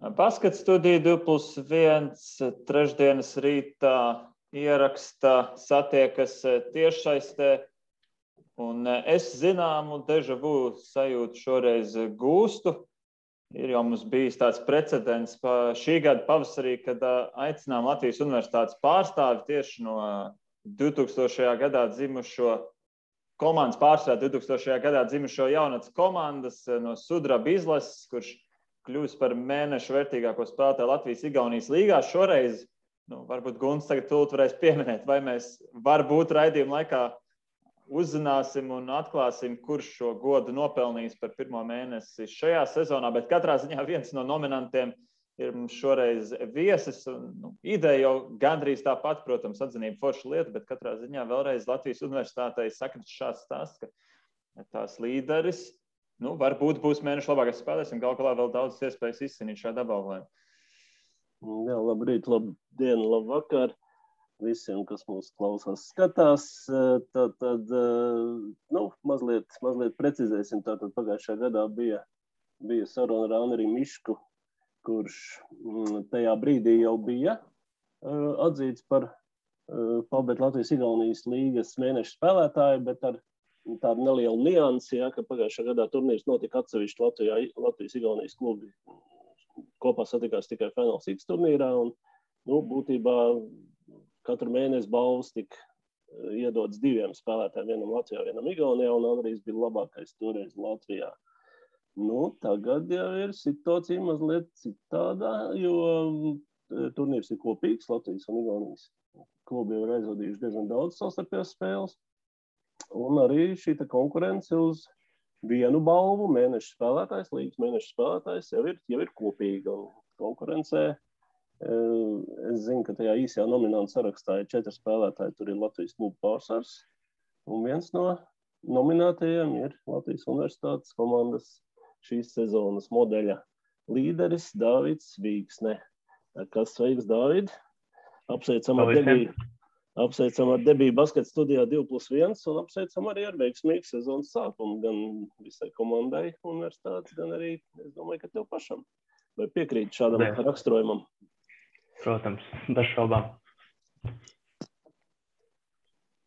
Basket studija 2+1 trešdienas rītā ieraksta satiekas tiešsaistē. Un es zināmu deja vu sajūtu šoreiz gūstu. Ir jau mums bijis tāds precedents šī gada pavasarī, kad aicinām Latvijas Universitātes pārstāvi tieši no 2000. gadā dzimušo komandas pārstāvi 2000. gadā dzimušo jaunatnes komandas no Sudraba izlases, kurš kļūst par mēnešu vērtīgāko spēlētāju Latvijas-Igaunijas līgā. Šoreiz, varbūt Gunts tagad tūlīt varēs pieminēt, vai mēs varbūt raidījuma laikā uzzināsim un atklāsim, kurš šo godu nopelnījis par pirmo mēnesi šajā sezonā, bet katrā ziņā viens no nominantiem ir mums šoreiz viesis. Ideja jau gandrīz tāpat, protams, atzinība forša lieta, bet katrā ziņā vēlreiz Latvijas Universitātei sakrit šāds stāsts, ka tās līderis varbūt būs mēnešu labākais spēlētājs un galu galā vēl daudz iespējas izcīnīt šādu apbalvojumu. Jā, labrīt, labdien, labvakar visiem, kas mūs klausās, skatās. Tad mazliet precizēsim. Tātad pagājušajā gadā bija saruna ar Anneri Mišku, kurš tajā brīdī jau bija atzīts par Palbēt Latvijas-Igaunijas līgas mēneša spēlētāju, bet ar tādu nelielu niansi, ka pagājušajā gadā turnīrs notika atsevišķi Latvijas-Igaunijas klubi. Kopā satikās tikai Fināls X turnīrā, un būtībā katru mēnesi balvas tika iedots diviem spēlētājiem, vienam Latvijā, vienam Igaunijā, un Andrijs bija labākais toreiz Latvijā. Tagad jau ir situācija mazliet citādā, jo turnīrs ir kopīgs, Latvijas un Igaunijas klubi jau ir aizvadījuši diezgan daudz savstarpējās spēles, un arī šī konkurence uz vienu balvu mēneša spēlētājs, līgas mēneša spēlētājs jau ir kopīga, un konkurencē es zinu, ka tajā īsajā nominantu sarakstā ir 4 spēlētāji, tur ir Latvijas klubu pārsvars, un viens no nominētajiem ir Latvijas Universitātes komandas šīs sezonas modeļa līderis Dāvids Vīksne. Kas sveiks, Dāvid? Apsveicam ar debiju basket studijā 2+1 un apsveicam arī ar veiksmīgu sezonas sākumu gan visai komandai universitātes, gan arī, es domāju, ka tev pašam. Vai piekrīt šādam raksturojumam? Protams, bez šaubām.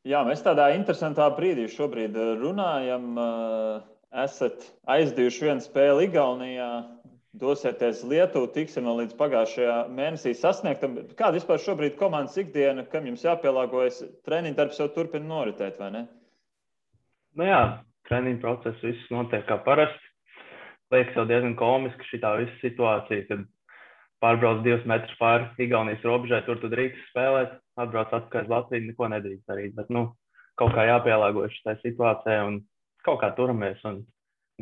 Jā, mēs tādā interesantā brīdī šobrīd runājam. Esat aizdījuši vienu spēli Igaunijā, dosieties Lietuvu, tiksim vēl līdz pagājušajā mēnesī sasniegtam. Kāda vispār šobrīd komandas ikdiena, kam jums jāpielāgojas? Treniņu darbs jau turpina noritēt, vai ne? Jā, treniņu process viss notiek kā parasti. Liekas jau diezgan komiski šitā visa situācija, kad pārbrauc 2 metrus pāri Igaunijas robežai, tur tu drīkst spēlēt, atbrauc atpakaļ uz Latviju, neko nedrīkst darīt, bet kaut kā jāpielāgojas šai situācijai un kaut kā turamies un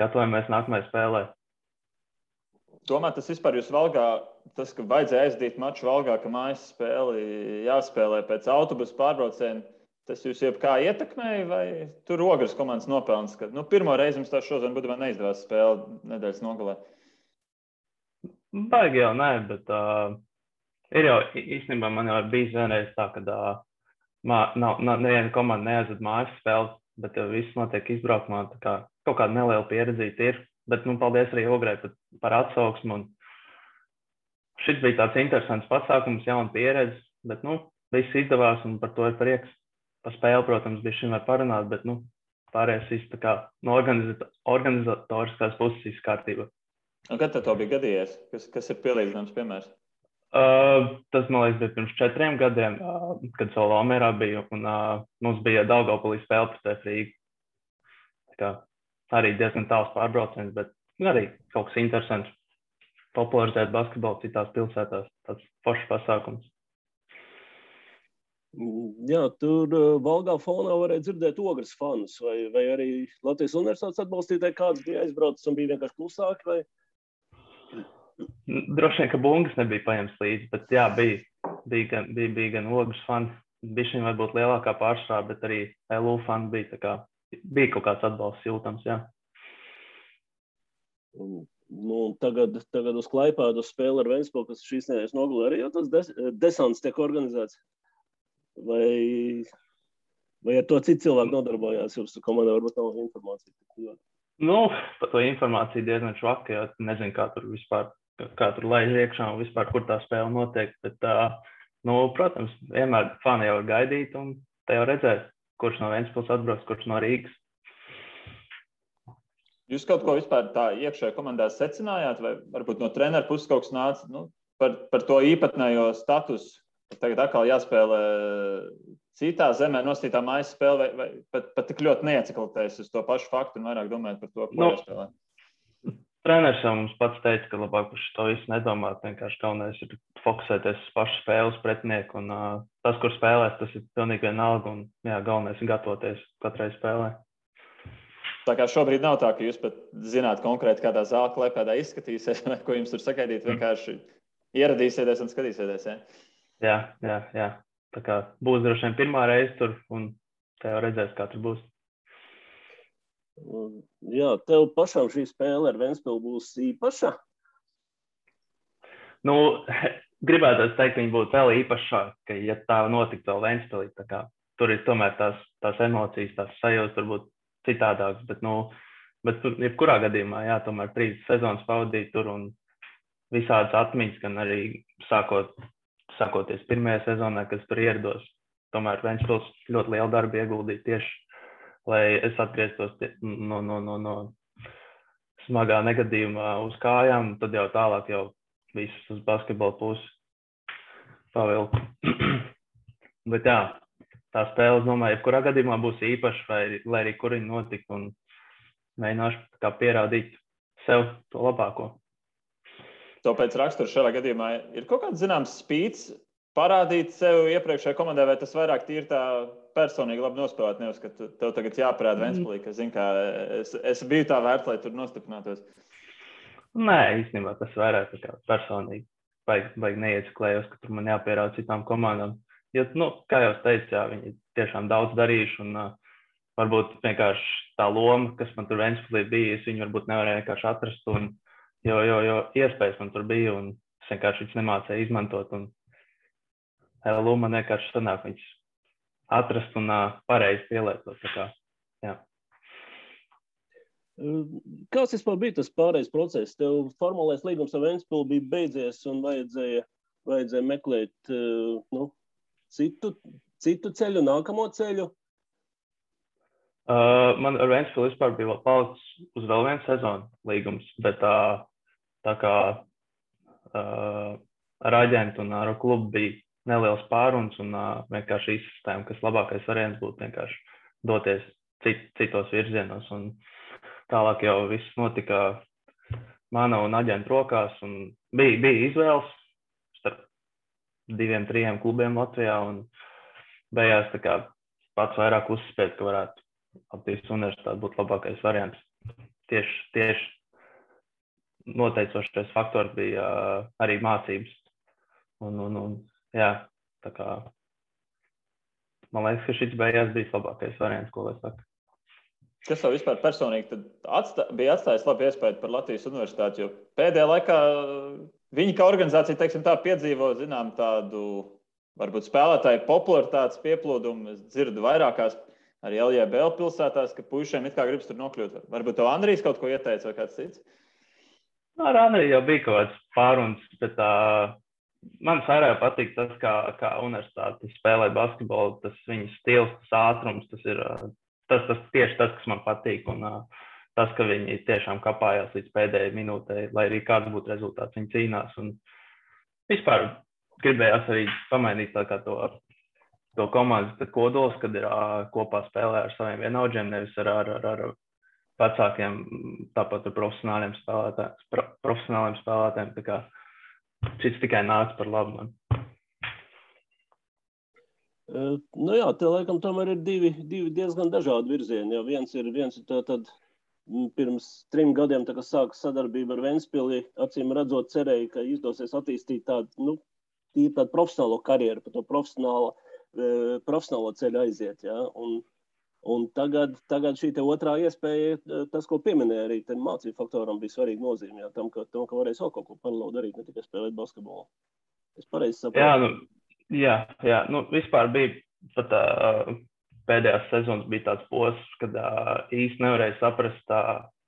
gatavojamies nākamajai spēlē. Domāju, tas vispār jūs Valgā, tas, ka vajadzēja aizdīt maču Valgā, ka mājas spēli jāspēlē pēc autobusu pārbrauciena, tas jūs jebkā ietekmēja vai tur Ogres komandas nopelns, ka pirmo reizi mums tā šodien būtībā neizdevās spēle nedēļas nogalē? Baigi jau nē, bet ir jau īstenībā man jau bijis vienreiz tā, kad neviena komanda neaizved mājas spēles, bet viss notiek izbraukumā, tā kā kaut kāda neliela pieredzīta ir. Bet, paldies arī Ograi par atsauksmu. Šis bija tāds interesants pasākums, jauna pieredze, bet, viss izdevās un par to ir prieks. Pa spēli, protams, bija šim var parunāt, bet, pārējais viss tā kā no organizatoriskās puses viss kārtībā. Un kad tev bija gadījies? Kas ir pielīdzināms piemērs? Tas, man liekas, bija pirms 4 gadiem, kad Solomērā bija, un mums bija Daugavpilī spēle pret Rīgu. Tā kā arī diezgan tāls pārbrauciens, bet arī kaut kas interesants. Popularizēt basketbolu citās pilsētās, tāds foršs pasākums. Jā, tur Valgā fonā varēja dzirdēt Ogres fanus, vai arī Latvijas Universitātes atbalstītāji kāds bija aizbraucis un bija vienkārši klusāki, vai? Droši vien, ka bungas nebija paņemts līdzi, bet jā, bija gan Ogres fani. Bišķiņ varbūt lielākā pārsvarā, bet arī LU fani bija tā kā. Bija kaut kāds atbalsts jūtams, jā. Tagad uz Klaipēdu spēli ar Ventspili, kas šīs nedēļas nogalē, arī jau tas desants tiek organizēts? Vai ar to citu cilvēku nodarbojās? Jums komandā varbūt nav informācija? Par to informāciju diezgan švaka, jo nezinu, kā tur vispār kā tur laiž iekšā un vispār, kur tā spēle notiek. Bet, protams, vienmēr fani jau ir gaidīt un te jau redzēt, kurš no Ventspils atbrauks, kurš no Rīgas. Jūs kaut ko vispār tā iekšējā komandā secinājāt, vai varbūt no treneru puses kaut kas nāca par to īpatnējo statusu? Tagad atkal jāspēlē citā zemē nostītā mājas spēle, vai pat tik ļoti neieciklatējas uz to pašu faktu un vairāk domājat par to, ko jāspēlē? Treneris jau mums pats teica, ka labāk par to visu nedomāt. Vienkārši galvenais ir fokusēties uz pašu spēles pretinieku. Un tas, kur spēlēs, tas ir pilnīgi vienalga. Un galvenais ir gatavoties katrai spēlē. Tā kā šobrīd nav tā, ka jūs pat zināt konkrēti, kādā zāle klēpēdā izskatīsies, vai ko jums tur sagaidīt, vienkārši ieradīsieties un skatīsieties. Ja? Jā. Tā kā būs droši vien pirmā reize tur, un te jau redzēs, kā tur būs. Jā, tev pašam šī spēle ar Ventspilu būs īpaša? Gribētu teikt, ka viņi būtu vēl īpašāka, ja tā notiktu vēl Ventspilī. Tur ir tomēr tās emocijas, tās sajūtas varbūt citādākas, bet jebkurā gadījumā, tomēr 3 sezonas pavadīt tur un visādas atmiņas, gan arī sākoties pirmajā sezonā, kas tur ierados. Tomēr Ventspils ļoti lielu darbu ieguldīja tieši, lai es atgrieztos no smagā negadījumā uz kājām, tad jau tālāk jau visus uz basketbola pusi pavilku. Bet tā spēle, es domāju, jebkurā gadījumā būs īpaša, lai arī kur viņi notika, un mēģināšu kā pierādīt sev to labāko. To pēc rakstura šajā gadījumā ir kaut kāds zināms spīts parādīt sev iepriekšējā komandā, vai tas vairāk tīri tā personīgi labi nospēlēt, nevis, ka tev tagad jāparāda Ventspilī, ka, zin kā, es biju tā vērts, lai tur nostiprinātos? Nē, īstenībā tas vairāk tā kā personīgi. Baigi neieciklējos, ka tur man jāpierāda citām komandām. Jo, kā jau es teicu, viņi tiešām daudz darījuši, un varbūt vienkārši tā loma, kas man tur Ventspilī bija, es viņu varbūt nevarēju vienkārši atrast, jo iespējas man tur bija, un es vienkārši viņus nemācēju izmantot, un LU man vienkārši sanāk viņus atrast un pareizi pielietot. Kāds vispār bija tas pārējais process? Tev formālais līgums ar Ventspilu bija beidzies un vajadzēja meklēt citu ceļu, nākamo ceļu? Man ar Ventspilu vispār bija palicis uz vēl vienu sezonu līgums, bet tā kā ar aģentu un ar klubu bija neliels pāruns un vienkārši izsistēma, kas labākais variants būtu vienkārši doties citos virzienos. Un tālāk jau viss notika mana un aģentu rokās, un bija izvēles starp 2-3 klubiem Latvijā, un beigās tā kā pats vairāk uzspēt, ka varētu Latvijas universitāte būt labākais variants. Tieši noteicošais faktors bija arī mācības. Tā kā man liekas, ka šis beigās bija labākais variants, ko lai saka. Kas tev vispār personīgi bija atstājis labu iespēju par Latvijas universitāti, jo pēdējā laikā viņi kā organizācija, teiksim tā, piedzīvo, zinām, tādu varbūt spēlētāju popularitātes pieplūdumu. Es dzirdu vairākās arī LJBL pilsētās, ka puišiem it kā gribas tur nokļūt. Varbūt tev Andrijs kaut ko ieteica vai kāds cits? Ar Andriju jau bija kaut kāds pāruns, bet man vairāk patīk tas, kā universitāte spēlē basketbolu, tas viņas stils, tas ātrums, tas ir tieši tas, kas man patīk, un tas, ka viņi tiešām kapājās līdz pēdējai minūtei, lai arī kāds būtu rezultāts, viņi cīnās, un vispār gribējās arī pamainīt tā kā to komandas kodols, kad ir kopā spēlē ar saviem vienaudžiem, nevis ar vecākiem, tāpat ar profesionāliem spēlētājiem, tā kā šis tikai nāca par labu man. Te laikam tomēr ir divi diezgan dažādi virzieni. Ja viens ir tad pirms 3 gadiem, tā kā sāka sadarbība ar Ventspili, acīm redzot cerēja, ka izdosies attīstīt tādu profesionālo karjeru, pa to profesionālo ceļu aiziet. Ja? Un tagad šī te otrā iespēja, tas, ko pieminēja arī, mācību faktoram bija svarīga nozīme, tam, ka varēs vēl kaut ko paralēli darīt, ne tikai spēlēt basketbolu. Es pareizi saprotu. Jā, vispār bija pat pēdējās sezonas bija tāds posms, kad īsti nevarēja saprast,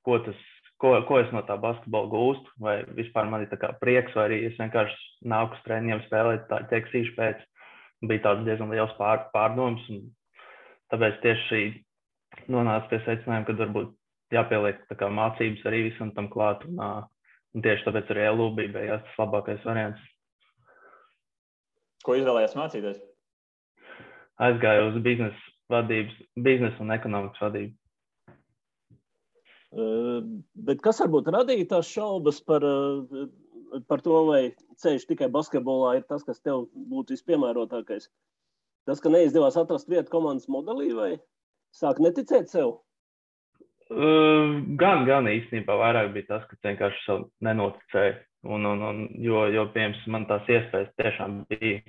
ko tas ko es no tā basketbola gūstu, vai vispār man ir tā kā prieks, vai arī es vienkārši nāku uz treniņiem spēlēt, tā ķeksīšu pēc. Bija tāds diezgan liels pārdoms, un tāpēc tieši nonāca pie secinājuma, ka varbūt jāpieliek tā kā mācības arī visam tam klāt, un tieši tāpēc arī LU bija tas labākais variants. Ko izvēlējās mācīties? Aizgāju uz biznesa un ekonomikas vadību. Bet kas varbūt radīja tās šaubas par to, vai ceļš tikai basketbolā ir tas, kas tev būtu vispiemērotākais? Tas, ka neizdevās atrast vietu komandas modelī, vai sāk neticēt sev? Gan īstenībā vairāk bija tas, ka vienkārši sev nenoticēju. Jo piemēram, man tās iespējas tiešām bija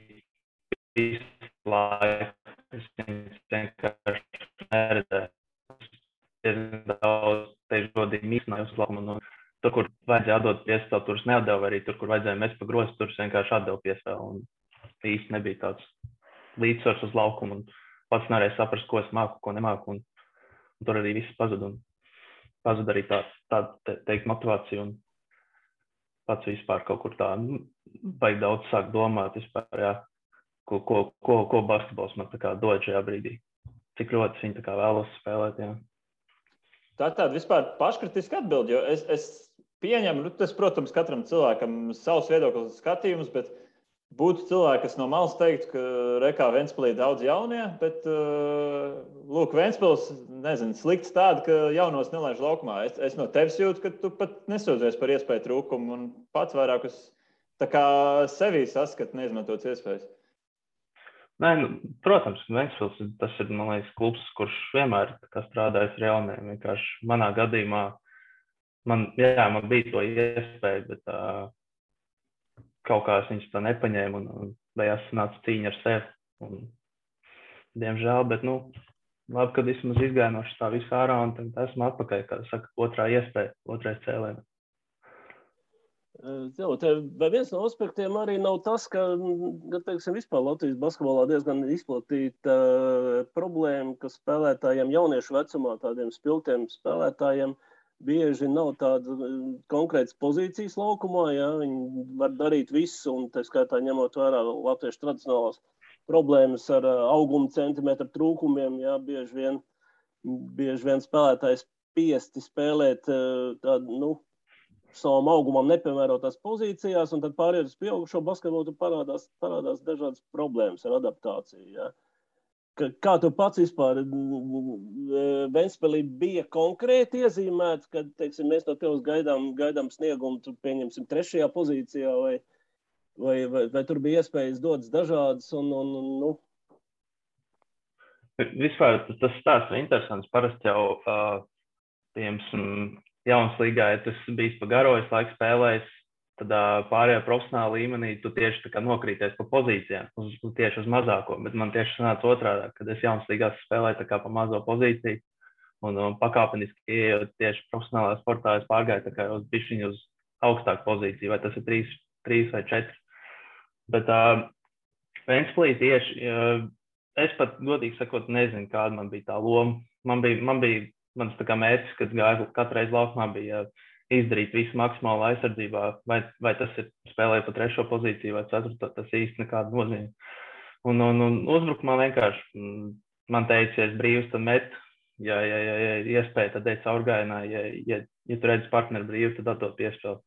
visu laiku. Es vienkārši neredzēju. Daudz tieši godīgi mīkstināju uz laukumu. Tur, kur vajadzēja atdot piespēli, tur es neatdevu, arī tur, kur vajadzēja mest pa grozu, tur es vienkārši atdevu piespēli. Un īsti nebija tāds līdzsvars uz laukumu. Un pats nevarēja saprast, ko es māku, ko nemāku. Un tur arī viss pazuda. Un pazuda arī tāda teikt motivācija. Un pats vispār kaut kur tā vajag daudz sākt domāt vispār, jā, ko basketbols man tā kā dod šajā brīdī. Cik ļoti viņi tā kā vēlos spēlēt, jā. Tā tāda vispār paškritiska atbilde, jo es pieņemu, tas, protams, katram cilvēkam savs viedoklis skatījums, bet būtu cilvēki, kas no malas teiktu, ka Rekā Ventspilī daudz jaunie, bet, lūk, Ventspils, nezinu, slikts tāda, ka jaunos nelaiž laukumā. Es no tevis jūtu, ka tu pat nesūdzies par iespēju trūkumu un pats vairāk uz tā kā sevī saskat neizmantotas iespējas. Nē, protams, Ventspils, tas ir, man liekas, klubs, kurš vienmēr strādājis ar jauniem. Vienkārši manā gadījumā man bija to iespēju, bet kaut kā es viņus tā nepaņēmu un beigās sanāca cīņa ar sevi. Un, diemžēl, bet, labi, kad vismaz izgāju no tā visu ārā un tad esmu atpakaļ, kā saka, otrā iespēja, otrais cēlēm. Vai viens no aspektiem arī nav tas, ka teiksim, vispār Latvijas basketbolā diezgan izplatīta problēma, ka spēlētājiem jauniešu vecumā, tādiem spilgtiem spēlētājiem, bieži nav tāda konkrētas pozīcijas laukumā, ja? Viņi var darīt visu, un tā skaitā ņemot vērā latviešu tradicionālās problēmas ar auguma centimetru trūkumiem, ja? Bieži vien spēlētājs spiesti spēlēt tādu, savam augumam nepiemērotās pozīcijās, un tad pārējot uz pieaugušo basketbolu parādās dažādas problēmas ar adaptāciju. Ja? Kā tu pats vispār Ventspilī bija konkrēti iezīmēts, kad, teiksim, mēs no tevis gaidām sniegumu, tu pieņemsim 3. pozīcijā, vai tur bija iespējas dodas dažādas, Vispār tas stāsts ir interesants. Parasti jau, jaunas līgā, ja tas bijis pa garo, es laiku spēlējis, tad pārējā profesionāla līmenī tu tieši tā kā nokrīties pa pozīcijām, tieši uz mazāko, bet man tieši sanāca otrādā, kad es jaunas līgās spēlēju tā kā pa mazo pozīciju un pakāpeniski ieejot tieši profesionālā sportā, es pārgāju tā kā uz bišķiņu uz augstāku pozīciju, vai tas ir 3 vai 4. Bet Ventspilī tieši, es pat godīgi sakot nezinu, kāda man bija tā loma. Mans tā kā mērķis, kad gāju katru reizi laukumā, bija izdarīt visu maksimāli aizsardzībā, vai tas ir spēlēt pa 3. pozīciju vai 4. Tas īsti nekāda nozīme. Un uzbrukumā vienkārši man teica, ja es brīvs, tad met, ja iespēja, tad ej caurgājienā, ja tu redzi partneri brīvi, tad atdot piespēli.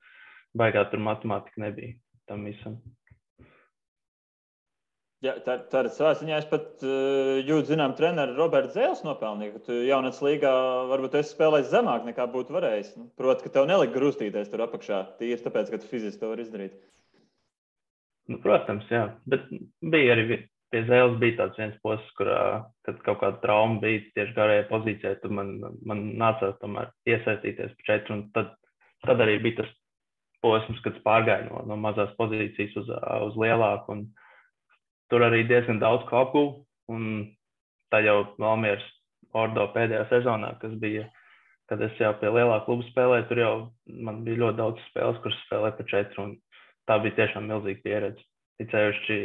Baigā tur matemātika nebija tam visam. Jā, tā ir savā ziņā. Es pat jūtu, zinām, treneru Roberts Zēles nopelnīja, ka tu jaunats līgā varbūt esi spēlējis zemāk nekā būtu varējis. Proti, ka tev nelika grūstīties tur apakšā. Tīri tāpēc, ka tu fiziski to var izdarīt. Protams, jā. Bet bija arī pie Zēles bija tāds viens posms, kad kaut kāda trauma bija tieši garajā pozīcijā, tad man nācās tomēr iesaistīties pa 4. Un tad arī bija tas posms, kad es pārgāju no mazās pozīcijas uz lielāku. Un tur arī diezgan daudz ko apguvu, un tā jau Valmieras Ordo pēdējā sezonā, kas bija, kad es jau pie lielā kluba spēlēju, tur jau man bija ļoti daudz spēles, kuras spēlēju pa 4, un tā bija tiešām milzīga pieredze. Ticējuši,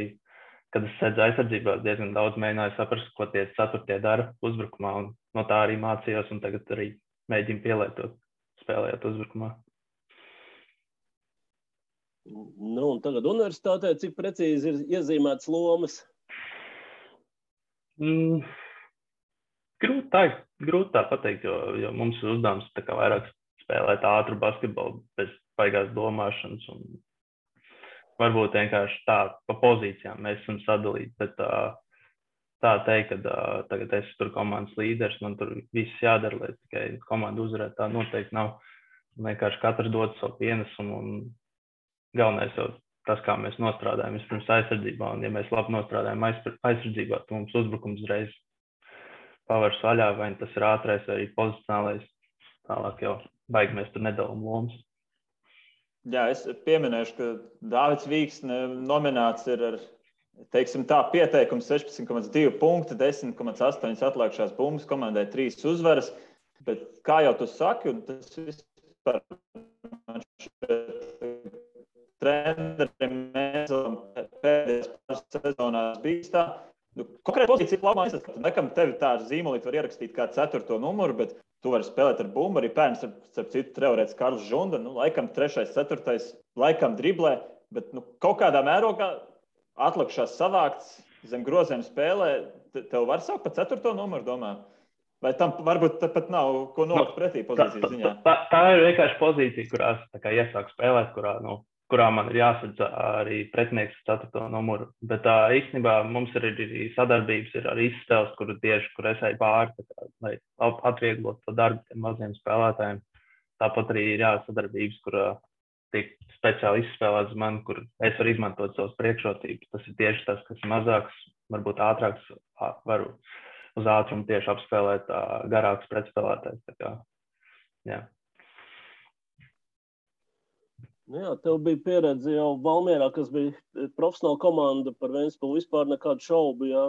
kad es sēdzu aizsardzībā, diezgan daudz mēģināju saprast, ko tie 4. dara uzbrukumā, un no tā arī mācījos, un tagad arī mēģinu pielietot spēlējot uzbrukumā. Nu, un tagad universitātē, cik precīzi ir iezīmētas lomas? Grūti tā pateikt, jo mums ir uzdevums tā kā vairāk spēlēt ātru basketbolu bez baigās domāšanas. Un varbūt vienkārši tā pa pozīcijām mēs esam sadalīti, bet tā teikt, ka tagad es tur komandas līderis, man tur viss jādara, lai tikai komanda uzvarētu, tā noteikti nav. Vienkārši katrs dod savu pienesumu un galvenais jau tas, kā mēs nostrādājam vispirms aizsardzībā, un ja mēs labi nostrādājam aizsardzībā, tad mums uzbrukums uzreiz pavars vaļā, vai tas ir ātrais vai arī pozicionālais, tālāk jau baigi mēs tur nedalām lomas. Jā, es pieminēšu, ka Dāvids Vīksne nominēts ir ar, teiksim tā, pieteikums 16,2 punkti, 10,8 atlikušās bumbas, komandai 3 uzvaras, bet kā jau tu saki, un tas vispār man šeit trenerim mēs pēdējās pāris sezonās bijis tā, konkrēti pozīcija labā izskatāt. Nekam tevi tā zīmolīt var ierakstīt kā 4. numuru, bet tu vari spēlēt ar bumbu. Arī pērns, starp citu, treorēts Karls Žunda, laikam 3., 4., laikam driblē, bet kaut kādā mērogā atlikušās savākts zem groziem spēlē. Tev var saukt pa 4. numuru, domā? Vai tam varbūt pat nav ko nolikt pretī pozīcijas ziņā? Tā ir vienkārši pozīcija, kurās tā kā iesāk spēlēt, kurā man ir jāsadz arī pretinieks 4. numuru. Bet īstenībā mums ir arī sadarbības ar izspēles, kur es eju pāri, lai atvieglot to darbu tiem maziem spēlētājiem. Tāpat arī ir sadarbības, kur tiek speciāli izspēlēts man, kur es varu izmantot savas priekšrocības. Tas ir tieši tas, kas mazāks, varbūt ātrāks, varu uz ātrumu tieši apspēlēt garāks pretspēlētājs. Jā. Nu jā, tev bija pieredze jau Valmierā, kas bija profesionāla komanda, par Ventspili vispār nekādu šaubu, jā.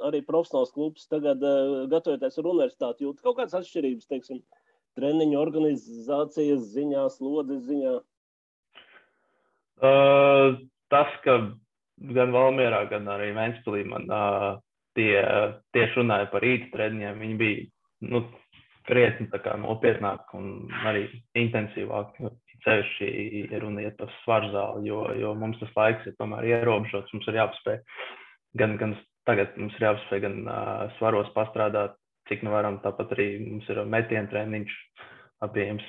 Arī profesionāls klubs tagad gatavoties ar universitāti jūt kaut kādas atšķirības, teiksim, treniņu organizācijas ziņā, slodzes ziņā? Tas, ka gan Valmierā, gan arī Ventspilī man tieši runāja par rīta treniņiem, viņi bija, krietni tā kā nopietnāk un arī intensīvāk. Sevišķi ir runa iet par svarzāli, jo mums tas laiks ir tomēr ierobežots. Mums ir jāpaspēj gan tagad mums ir jāpaspēj gan svaros pastrādāt, cik nu varam. Tāpat arī mums ir metienu treniņš pieejams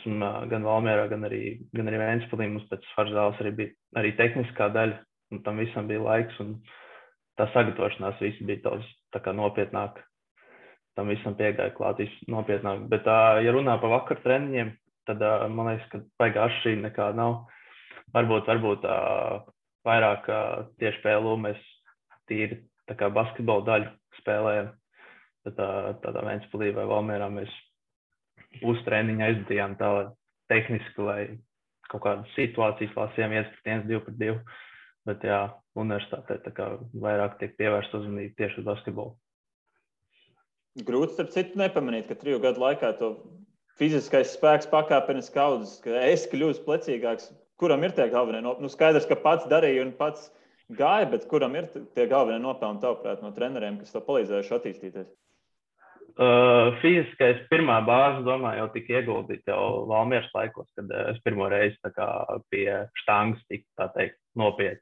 gan Valmierā, gan arī Ventspilī. Mums pēc svarzāles arī bija arī tehniskā daļa, un tam visam bija laiks. Un tā sagatavošanās viss bija daudz tā kā nopietnāk. Tam visam piegāja klāt nopietnāk. Bet, ja runā par vakar treniņiem, tad man liekas, ka baigā atšķirība nekāda nav. Varbūt vairāk tieši PLU mēs tīri tā kā basketbola daļu spēlējam. Tad tādā Ventspilī vai Valmierā mēs treniņu aizdījām tā tehniski, lai kaut kādas situācijas lasījām 1-1, 2-2. Bet jā, universitātē tā kā vairāk tiek pievērsta uzmanība tieši uz basketbolu. Grūti, starp citu, nepamanīt, ka 3 gadu laikā to fiziskais spēks pakāpeniski audzis, ka es kļūstu plecīgāks. Kuram ir tie galvenie nopelni? Skaidrs, ka pats darīja un pats gāja, bet kuram ir tie galvenie nopelni tavuprāt no treneriem, kas to palīdzējuši attīstīties? Fiziskais pirmā bāze, domāju, jau tika ieguldīta jau Valmieras laikos, kad es pirmo reizi tā kā pie štangas tika, tā teikt, nopietni.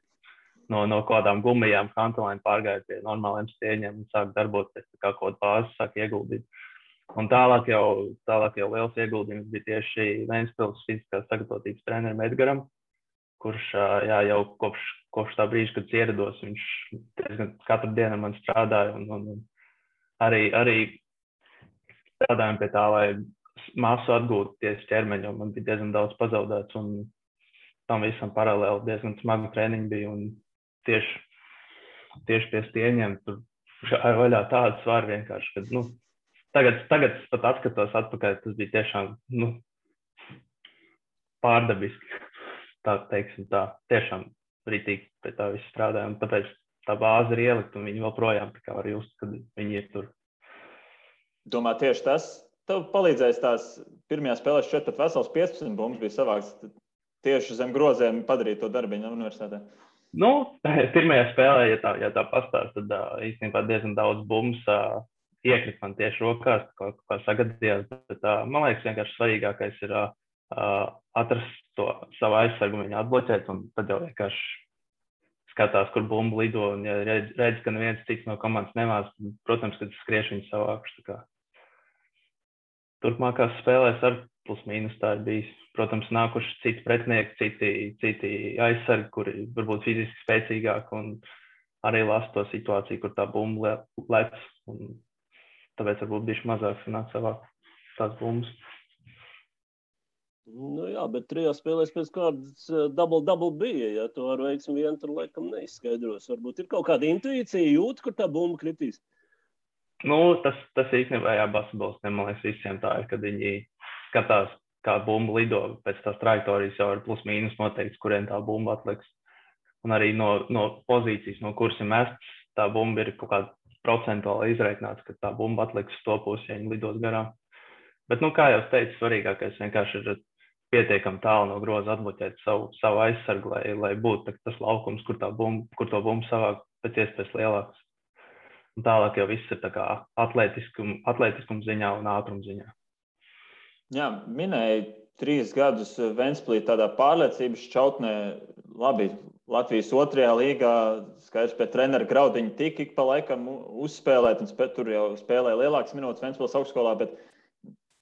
No kādām gumijām kantelēm pārgāja pie normāliem stieņiem un sāk darboties, tā kā kaut bāzi sāk ieguldīt. Un tālāk jau liels ieguldījums bija tieši Ventspils fiziskās sagatavotības trenerim Edgaram, kurš jau kopš tā brīža, kad ierados, viņš diezgan katru dienu man strādāja un arī strādājām pie tā, lai masu atgūtu tieši ķermeņu, un man bija diezgan daudz pazaudēts, un tam visam paralēli diezgan smagu treniņu bija, un tieši pie stieņiem tur gāja vaļā tādu svaru vienkārši, ka, tagad pat atskatos atpakaļ, tas bija tiešām, pārdabiski, tā teiksim tā, tiešām ritīgi pie tā viss strādāja, un tāpēc tā bāze ir ielikt, un viņi joprojām tā kā var just, kad viņi ir tur. Domā, tieši tas tev palīdzēs tās pirmajā spēlē šķiet pat vesels 15 bumbas bija savāks tieši zem groziem padarīt to darbiņu universitātē? Pirmajā spēlē, ja tā pastāst, tad īstenībā diezgan daudz bumbas iekrita man tieši rokās, kā sagadījās. Bet, man liekas, vienkārši svarīgākais ir atrast to savu aizsargu, viņu atbloķēt, un tad jau vienkārši skatās, kur bumba lido, un ja redz, ka neviens cits no komandas nemās, protams, kad skrieš viņu savākuši. Turpmākās spēlēs ar plus mīnus tā ir bijis. Protams, nākuši citi pretinieki, citi aizsargi, kuri varbūt fiziski spēcīgāki, un arī lasa to situāciju, kur tā bumba lec, un tāpēc varbūt bišķi mazāk sanāk savāk tās bumbas. Nu jā, bet 3 spēlēs pēc kārtas double bija, ja to ar veiksmi vien tur laikam neizskaidros. Varbūt ir kaut kāda intuīcija, jūt, kur tā bumba kritīs. Nu, tas īstenībā basketbolistiem, man liekas, visiem tā ir, kad viņi skatās, kā bumba lido pēc tās trajektorijas, jau ir plus mīnus noteikts, kuriem tā bumba atliks. Un arī no pozīcijas, no kuras ir mests, tā bumba ir kaut kāda procentuāli izreikināts, ka tā bumba atliks to pusi, ja viņi lidos garām. Bet, kā jau teicu, svarīgākais vienkārši ir pietiekami tālu no groza atbloķēt savu aizsargu, lai būtu tas laukums, kur to bumbu savāk pēc iespējas lielāks. Un tālāk jau viss ir tā kā atletiskuma ziņā un ātruma ziņā. Jā, minēja 3 gadus Ventspilī tādā pārliecības šķautnē. Labi, Latvijas 2. līgā skaidrs pie trenera Graudiņa tika ik pa laikam uzspēlēt, un tur jau spēlēja lielākas minūtes Ventspils augstskolā, bet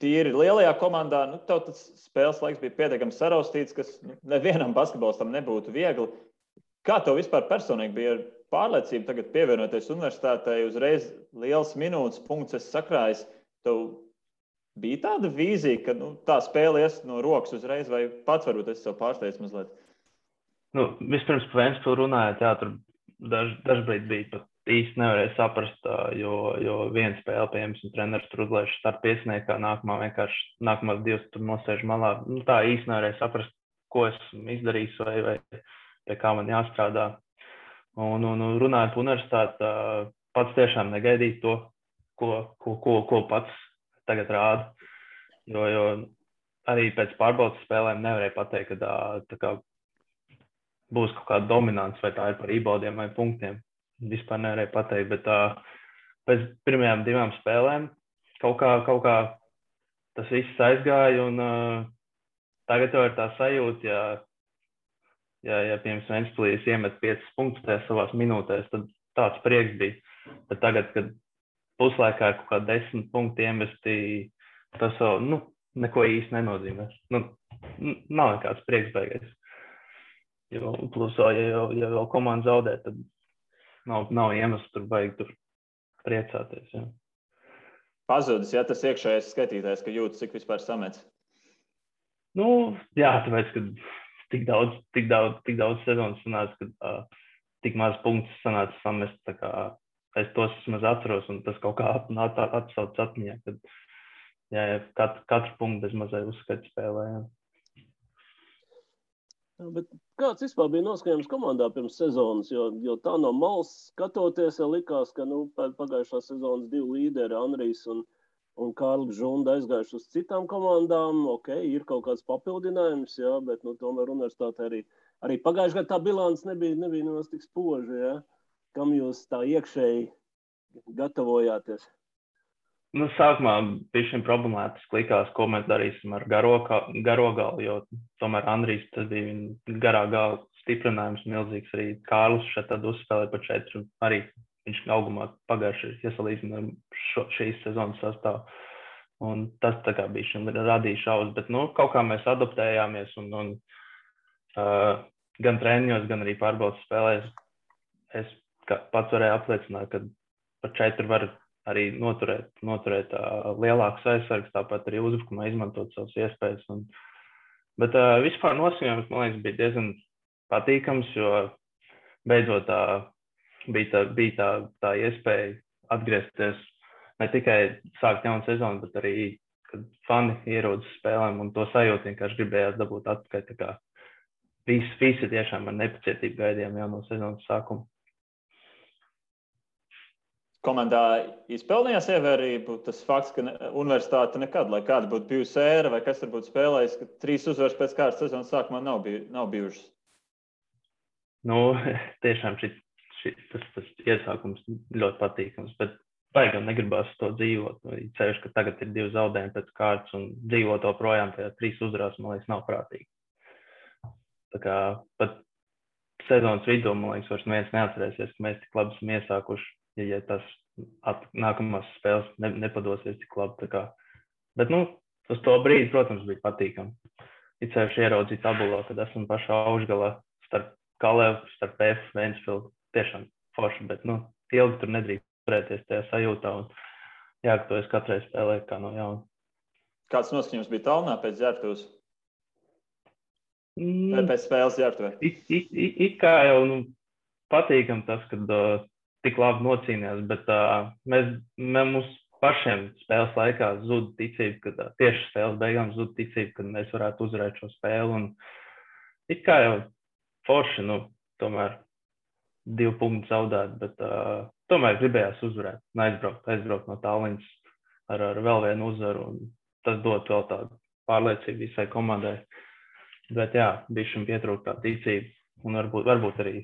tīri lielajā komandā, tev tas spēles laiks bija pietiekami saraustīts, kas nevienam basketbolistam nebūtu viegli. Kā tev vispār personīgi bija ar pārliecību tagad pievienoties universitātei, uzreiz liels minūtes punkts esi sakrājis? Tev bija tāda vīzija, ka tā spēle ies no rokas uzreiz, vai pats varbūt esi sev pārsteidz mazliet? Vispirms par Ventspilu runājot, jā, tur dažbrīd bija pat īsti nevarēja saprast, jo viena spēle, piemēram, treneris tur uzlaiž starta piesniekā, nākamās 2 tur nosēž malā. Tā īsti nevarēja saprast, ko esmu izdarījis vai pie kā man jāstrādā. Un runājot par universitāti, pats tiešām negaidīju to, ko pats tagad rāda. Jo arī pēc pārbaudas spēlēm nevarēja pateikt, ka tā būs kaut kāda dominants, vai tā ir par reboundiem vai punktiem. Vispār nevarēja pateikt, bet pēc pirmajām 2 spēlēm kaut kā tas viss aizgāja, un tagad jau ir tā sajūta, ja piemēram Ventspilī iemet 5 punktus tajās savās minūtēs, tad tāds prieks bija. Bet tagad, kad puslaikā ir kaut kā 10 punkti iemesti, tas jau neko īsti nenozīmē. Nav nekāds prieks beigais. Jo plus, ja vēl komanda zaudē, tad nav iemesls tur baigi tur priecāties. Jā. Pazudis, ja tas iekšējais skatītājs, ka jūtas, cik vispār samets? Jā, tāpēc, ka tik daudz sezonas sanāca, ka tik maz punktus sanāca samest, tā kā es tos vismaz atceros, un tas kaut kā atsauc atmiņā, kad katru punktu bez mazai uzskatu spēlē. Jā. Bet kāds vispār bija noskaņojums komandā pirms sezonas, jo tā no malas skatoties, likās, ka pagājušā sezonas 2 līderi, Anrijs un Kārlis Žunda aizgājuši uz citām komandām. Ok, ir kaut kāds papildinājums, jā, bet tomēr universitāte arī pagājušajā gadā tā bilants nebija nemaz tik spoža, jā. Kam jūs tā iekšēji gatavojāties? Sākumā bija šim problemātiski likās, ko mēs darīsim ar garo galu, jo tomēr Andrijs, tas bija viņa garā gala stiprinājums milzīgs. Arī Kārlis šeit tad uzspēlēja pa 4, un arī viņš augumā pagājuši iesalīdzina šīs sezonas sastāvu. Un tas tā kā bija šim radīja šaubas, bet kaut kā mēs adaptējāmies, un gan treniņos, gan arī pārbaudas spēlēs es pats varēju apliecināt, ka par 4 var arī noturēt lielākus aizsargus, tāpat arī uzbrukumā izmantot savas iespējas. Bet vispār noskaņojums, man liekas, bija diezgan patīkams, jo beidzot bija tā iespēja atgriezties, ne tikai sākt jaunu sezonu, bet arī, kad fani ierodas spēlēm, un to sajūtu vienkārši gribējās dabūt atpakaļ. Tā kā visi tiešām ar nepacietību gaidījām jau no sezonas sākuma. Komandā izpelnījās ievērību tas fakts, ka universitāte nekad, lai kāda būtu bijusi ēra vai kas tur būtu spēlējis, ka 3 uzvaras pēc kārtas sezonas sākumā nav bijušas? Tiešām tas iesākums ļoti patīkams, bet baigam negribas to dzīvot. Ceļš, ka tagad ir 2 zaudējumi pēc kārtas un dzīvot to projām tajā 3 uzvarās, man liekas, nav prātīgi. Tā kā pat sezonas vidū, man liekas, vairs neviens neatcerēsies, ka mēs tik labi esam iesākuši, ja tas nākamās spēles nepadosies tik labi. Tā kā. Bet, uz to brīdi, protams, bija patīkami. Ir ceļš ieraudzīt tabulā, kad esam pašā augšgalā starp Kalevu, starp F, Ventspilsnu. Tiešām forši, bet, ilgi tur nedrīkst turēties tajā sajūtā un jāgatavojas katrai spēlē kā no jauna. Kāds noskaņojums bija Tallinā pēc ģērbtuves? Pēc spēles ģērbtuvē? It kā jau patīkam tas, kad tik labi nocīnījās, bet mums pašiem spēles laikā zuda ticība, ka tieši spēles beigām zuda ticība, kad mēs varētu uzvarēt šo spēli. Un it kā jau forši, tomēr 2 punktus zaudēt, bet tomēr gribējās uzvarēt un aizbraukt no Tallinas ar vēl vienu uzvaru. Un tas dod vēl tādu pārliecību visai komandai. Bet jā, bišķiņ pietrūkt tā ticība un varbūt arī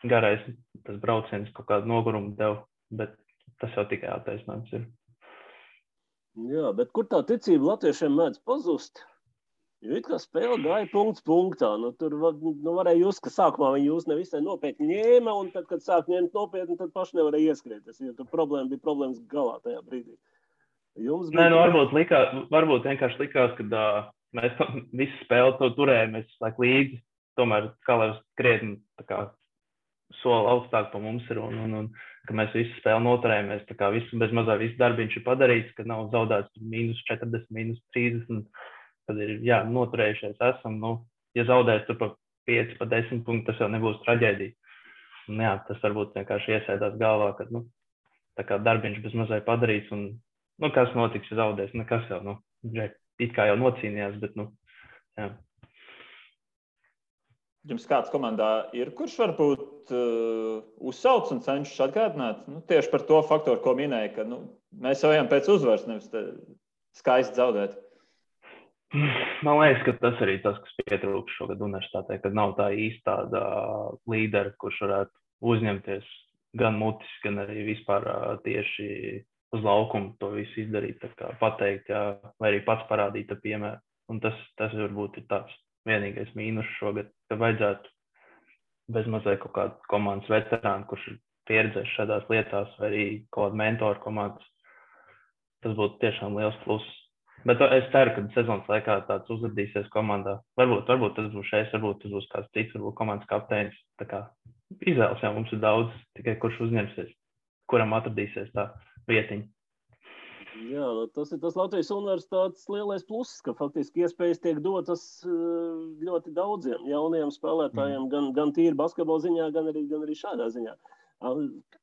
garais tas brauciens kaut kādu nogurumu dev, bet tas jau tikai attaisnojums ir. Jā, bet kur tā ticība latviešiem mēdz pazust? Jo it kā spēle gāja punkts punktā. Tur varēja just, ka sākumā viņi jūs nevisai nopietni ņēma, un tad, kad sāk ņemt nopietni, tad paši nevarēja ieskrieties. Jo tur bija problēmas galā tajā brīdī. Varbūt vienkārši likās, ka mēs visu spēli to turējamies līdzi. Tomēr Kalevs krietni soli augstāk pa mums ir un ka mēs visu spēli noturējamies. Bez mazā visu darbiņš ir padarīts, ka nav zaudēts -40, -30, kad ir noturējušies esam. Ja zaudēs tur pa 5, pa 10 punktu, tas jau nebūs traģēdija. Un, tas varbūt vienkārši iesēdās galvā, ka darbiņš bez mazai padarīts un kas notiks, ja zaudēs? Nekas jau, it kā jau nocīnījās, bet, jā. Jums kāds komandā ir, kurš varbūt uzsauc un cenšas atgādināt? Tieši par to faktoru, ko minēja, ka mēs jau ejam pēc uzvaras, nevis skaisti zaudēt. Man liekas, ka tas arī tas, kas pietrūkst šogad universitātē, kad nav tā īsti tāda līdera, kurš varētu uzņemties gan mutiski, gan arī vispār tieši uz laukumu to visu izdarīt, pateikt, vai arī pats parādīt ar piemēru. Un tas varbūt ir tāds vienīgais mīnus šogad, ka vajadzētu bez mazai kaut kādu komandas veterānu, kurš ir pieredzējis šādās lietās, vai arī kaut kādu mentoru komandas. Tas būtu tiešām liels pluss. Bet es ceru, ka sezonas laikā tāds uzradīsies komandā. Varbūt tas būs šeit, varbūt tas būs kāds cits, varbūt komandas kapteinis. Izvēles jau mums ir daudz, tikai kurš uzņemsies, kuram atradīsies tā vietiņa. Jā, tas ir tas Latvijas universitātes lielais pluss, ka faktiski iespējas tiek dotas ļoti daudziem jauniem spēlētājiem, gan tīri basketbola ziņā, gan arī šādā ziņā.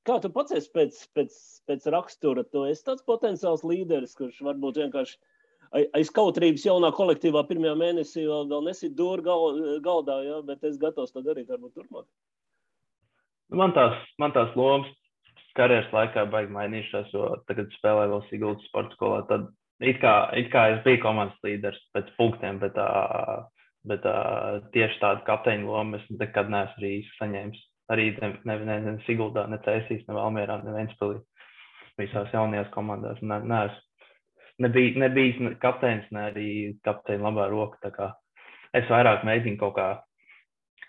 Kā tu pats esi pēc rakstura? Tu esi tāds potenciāls līderis, kurš varbūt vienkārši aiz kautrības jaunā kolektīvā pirmajā mēnesī vēl nesit dūri galdā, jā, bet es gatavs to darīt varbūt turpmāk. Man tās lomas karjeras laikā baigi mainījušās, jo tagad spēlēju vēl Siguldas sporta skolā. Tad it kā es biju komandas līderis pēc punktiem, bet tieši tādu kapteiņu lomu es nekad neesmu arī saņēmis. Arī ne Siguldā, ne Cēsīs, ne Valmierā, ne Ventspilī. Visās jaunajās komandās neesmu. Nebijis kapteinis, ne arī kapteini labā roka. Tā kā es vairāk mēģinu kaut kā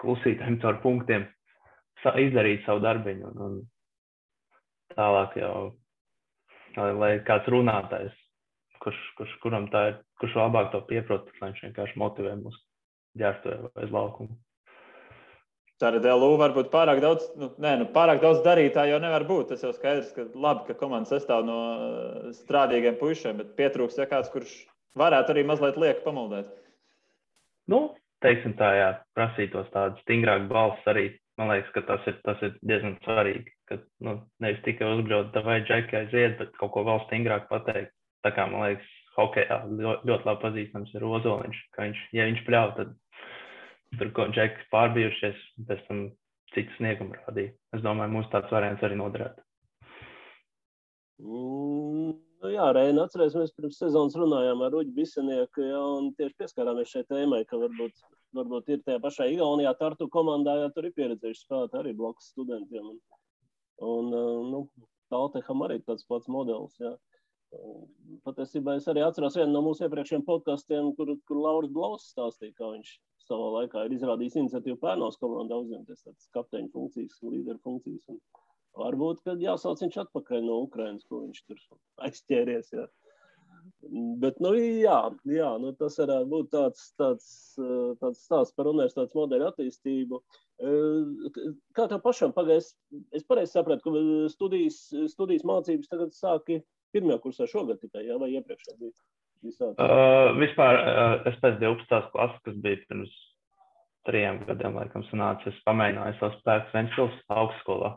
klusītēm caur punktiem izdarīt savu darbiņu. Un tālāk jau, lai kāds runātājs, kuram tā ir, kurš labāk to pieprot, lai viņš vienkārši motivē mūs ģērbtuvē vai uz laukumu. Tātad LU varbūt pārāk daudz darītāji jau nevar būt. Tas jau skaidrs, ka labi, ka komanda sastāv no strādīgiem puišiem, bet pietrūks kāds, kurš varētu arī mazliet lieki pamuldēt. Teiksim tā, jā, prasītos tādu stingrāku balss arī. Man liekas, ka tas ir diezgan svarīgi, ka nevis tikai uzbraukt, vai džeki aiziet, bet kaut ko vēl stingrāk pateikt. Tā kā, man liekas, hokejā ļoti labi pazīstams ir Ozoliņš, ka ja viņš pļauj, tad tur ko džeki pārbijušies, pēc tam citu sniegumu rādīja. Es domāju, mums tāds variants arī noderētu. Jā, Reina, atcerēsimies, pirms sezonas runājām ar Ruģi Bisenieku, un tieši pieskārāmies šai tēmai, ka varbūt ir tajā pašā Igaunijā Tartu komandā, tur ir pieredzējuši spēlēt arī blakus studentiem. Un Talteham arī tāds pats modelis, jā. Patiesībā es arī atceros vienu no mūsu iepriekšējiem podkastiem, kur Lauris Blaus stāstīja, kā viņš savā laikā ir izrādījis iniciatīvu Pērnaus komandā uzņemties tādas kapteiņu funkcijas, līderu funkcijas. Un varbūt, kad jāsauc viņš atpakaļ no Ukrainas, ko viņš tur aizķēries, jā. Bet, jā, tas varētu būt tāds stāsts par universitātes modeļu attīstību. Kā tev pašam pagājis? Es pareizi sapratu, ka studijas mācības tagad sāki pirmajā kursā šogad tikai, jā, vai iepriekšā bija sācis? Vispār es pēc 12. klases, kas bija pirms 3 gadiem, laikam, sanāca, es pamēģināju savus spēkus Ventspils augstskolā.